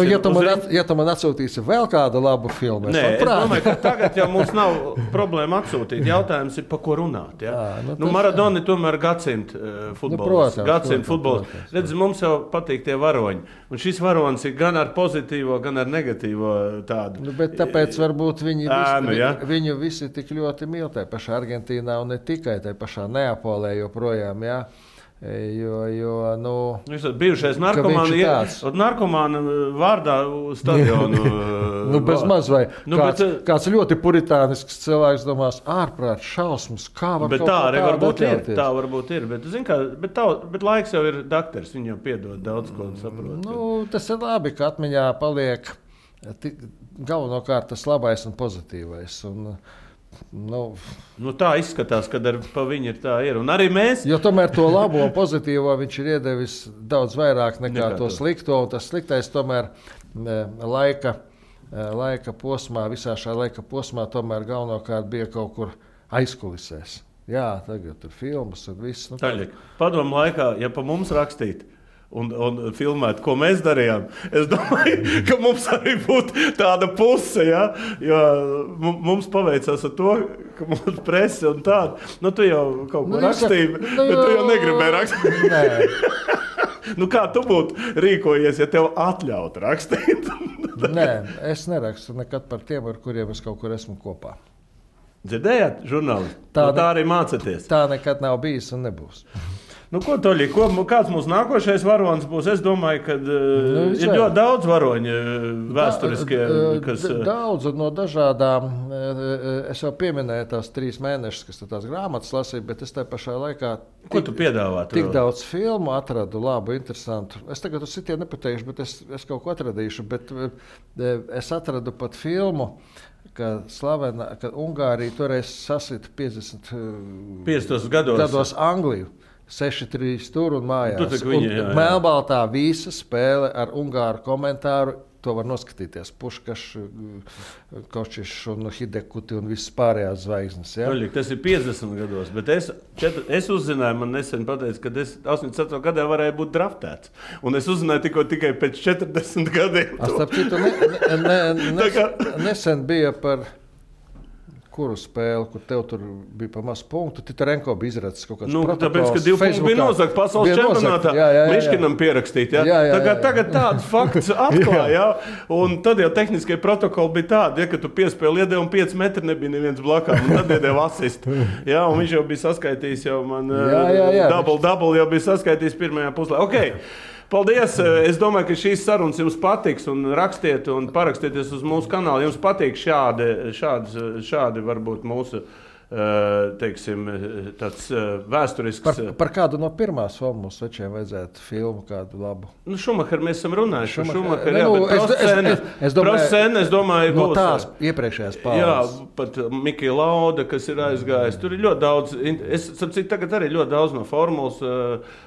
Ja tu man atsūtīsi vēl kādu labu filmu, es domāju, ka tagad jau mums nav problēma atsūtīt. Jautājums ir, pa ko runāt. Ja? Maradona tomēr gadsimta futbols. Gadsimta futbols. Redz, mums jau patīk tie varoņi. Un šis varonis ir gan ar pozitīvo, gan ar negatīvo tādu. Bet tāpēc varbūt viņu visi tik ļoti mīl tajā pašā Argentīnā un ne tikai tajā pašā Neapolē joprojām, jā. Viņš ir bijušais narkomāna vārdā stadionu. Bez maz vai kāds ļoti puritānisks cilvēks domās, ārprāt šausmas, kā var bet kaut tā arī varbūt ir. Bet laiks jau ir dakters, viņi jau piedod daudz ko saprot. Tas ir labi, ka atmiņā paliek galvenokārt tas labais un pozitīvais. Tā izskatās, ka pa viņu ir tā ir. Un arī mēs. Jo tomēr to labo un pozitīvo viņš ir iedevis daudz vairāk nekā to slikto. Un tas sliktais tomēr laika posmā, visā šā laika posmā tomēr galvenokārt bija kaut kur aizkulisēs. Jā, tagad tur filmas un viss. Padomu laikā, ja pa mums rakstīt un filmēt, ko mēs darījām, es domāju, ka mums arī būtu tāda puse, ja? Jo mums paveicās ar to, ka mums prese un tāda. Tu jau kaut ko rakstīji, bet tu jau negribēji rakstīt. Nē. Kā tu būtu rīkojies, ja tev atļautu rakstīt? Nē, es nerakstu nekad par tiem, ar kuriem es kaut kur esmu kopā. Dzirdējāt, žurnālisti? Tā arī mācāties. Tā nekad nav bijis un nebūs. Ko, Toļi, kāds mūsu nākošais varonis būs? Es domāju, ka ir ļoti daudz varoņu vēsturiskie. Daudz no dažādām. Es jau pieminēju tās 3 mēnešus, kas tās grāmatas lasīja, bet es tajā pašā laikā ko tu piedāvā? Tik daudz filmu atradu, labu, interesantu. Es tagad uz citiem nepateikšu, bet es kaut ko atradīšu. Bet es atradu pat filmu, ka Ungārija toreiz sasita 50 gados Angliju. 6-3 tur un mājās. Melnbaltā visa spēle ar ungāru komentāru. To var noskatīties. Puškašs, Kočišs un Hidekuti un visas pārējās zvaigznes. Ja? Tas ir 50 gados, bet es uzzināju, man nesen pateica, ka es 84. gadā varēju būt draftēts. Un es uzzināju tikai pēc 40 gadiem. Starp citu, nesen bija par kuru spēli, kur tev tur bija pa mazu punktu, Titarenko bija izracis kaut kāds protokols. Tāpēc, ka 2 punkti bija nozagt pasaules čempionātā. Miškinam pierakstīt. Tagad tāds fakts atklāja. Un tad jau tehniskie protokoli bija tādi, ka tu piespēli iedevi un 5 metri nebija neviens blakām. Un tad iedevi asistu. Un viņš jau bija saskaitījis, double jau bija saskaitījis pirmajā puslē. Okay. Paldies! Es domāju, ka šīs sarunas jums patiks un rakstiet un parakstieties uz mūsu kanālu. Jums patīk šādi varbūt mūsu, teiksim, tāds vēsturisks. Par kādu no pirmās filmas večiem vajadzētu filmu kādu labu? Šumacher mēs esam runājuši. Es domāju, no tās iepriekšējās paudzes. Jā, pat Mikija Lauda, kas ir aizgājis. Tur ir ļoti daudz, tagad arī ļoti daudz no formulas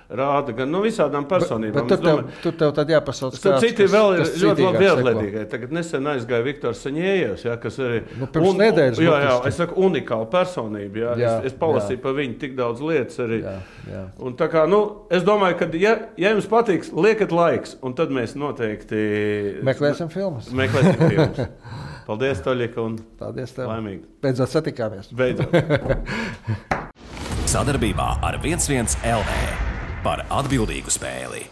rāda, gan no visādām personībām. Bet tur tev tad jāpasauc kāds, citi vēl ir ļoti labi viedlētīgai. Tagad nesen aizgāja Viktors Saņējevs, kas arī pirms nedēļas. Jā, es saku unikāla personība. Es palasīju par viņu tik daudz lietas arī. Jā. Un tā kā, es domāju, ka ja jums patiks, liekat laiks, un tad mēs noteikti meklēsim filmas. Paldies, Toļika, un paldies tev. Laimīgi. Beidzot satikāmies. Sadarbībā ar 11 LV par atbildīgu spēli.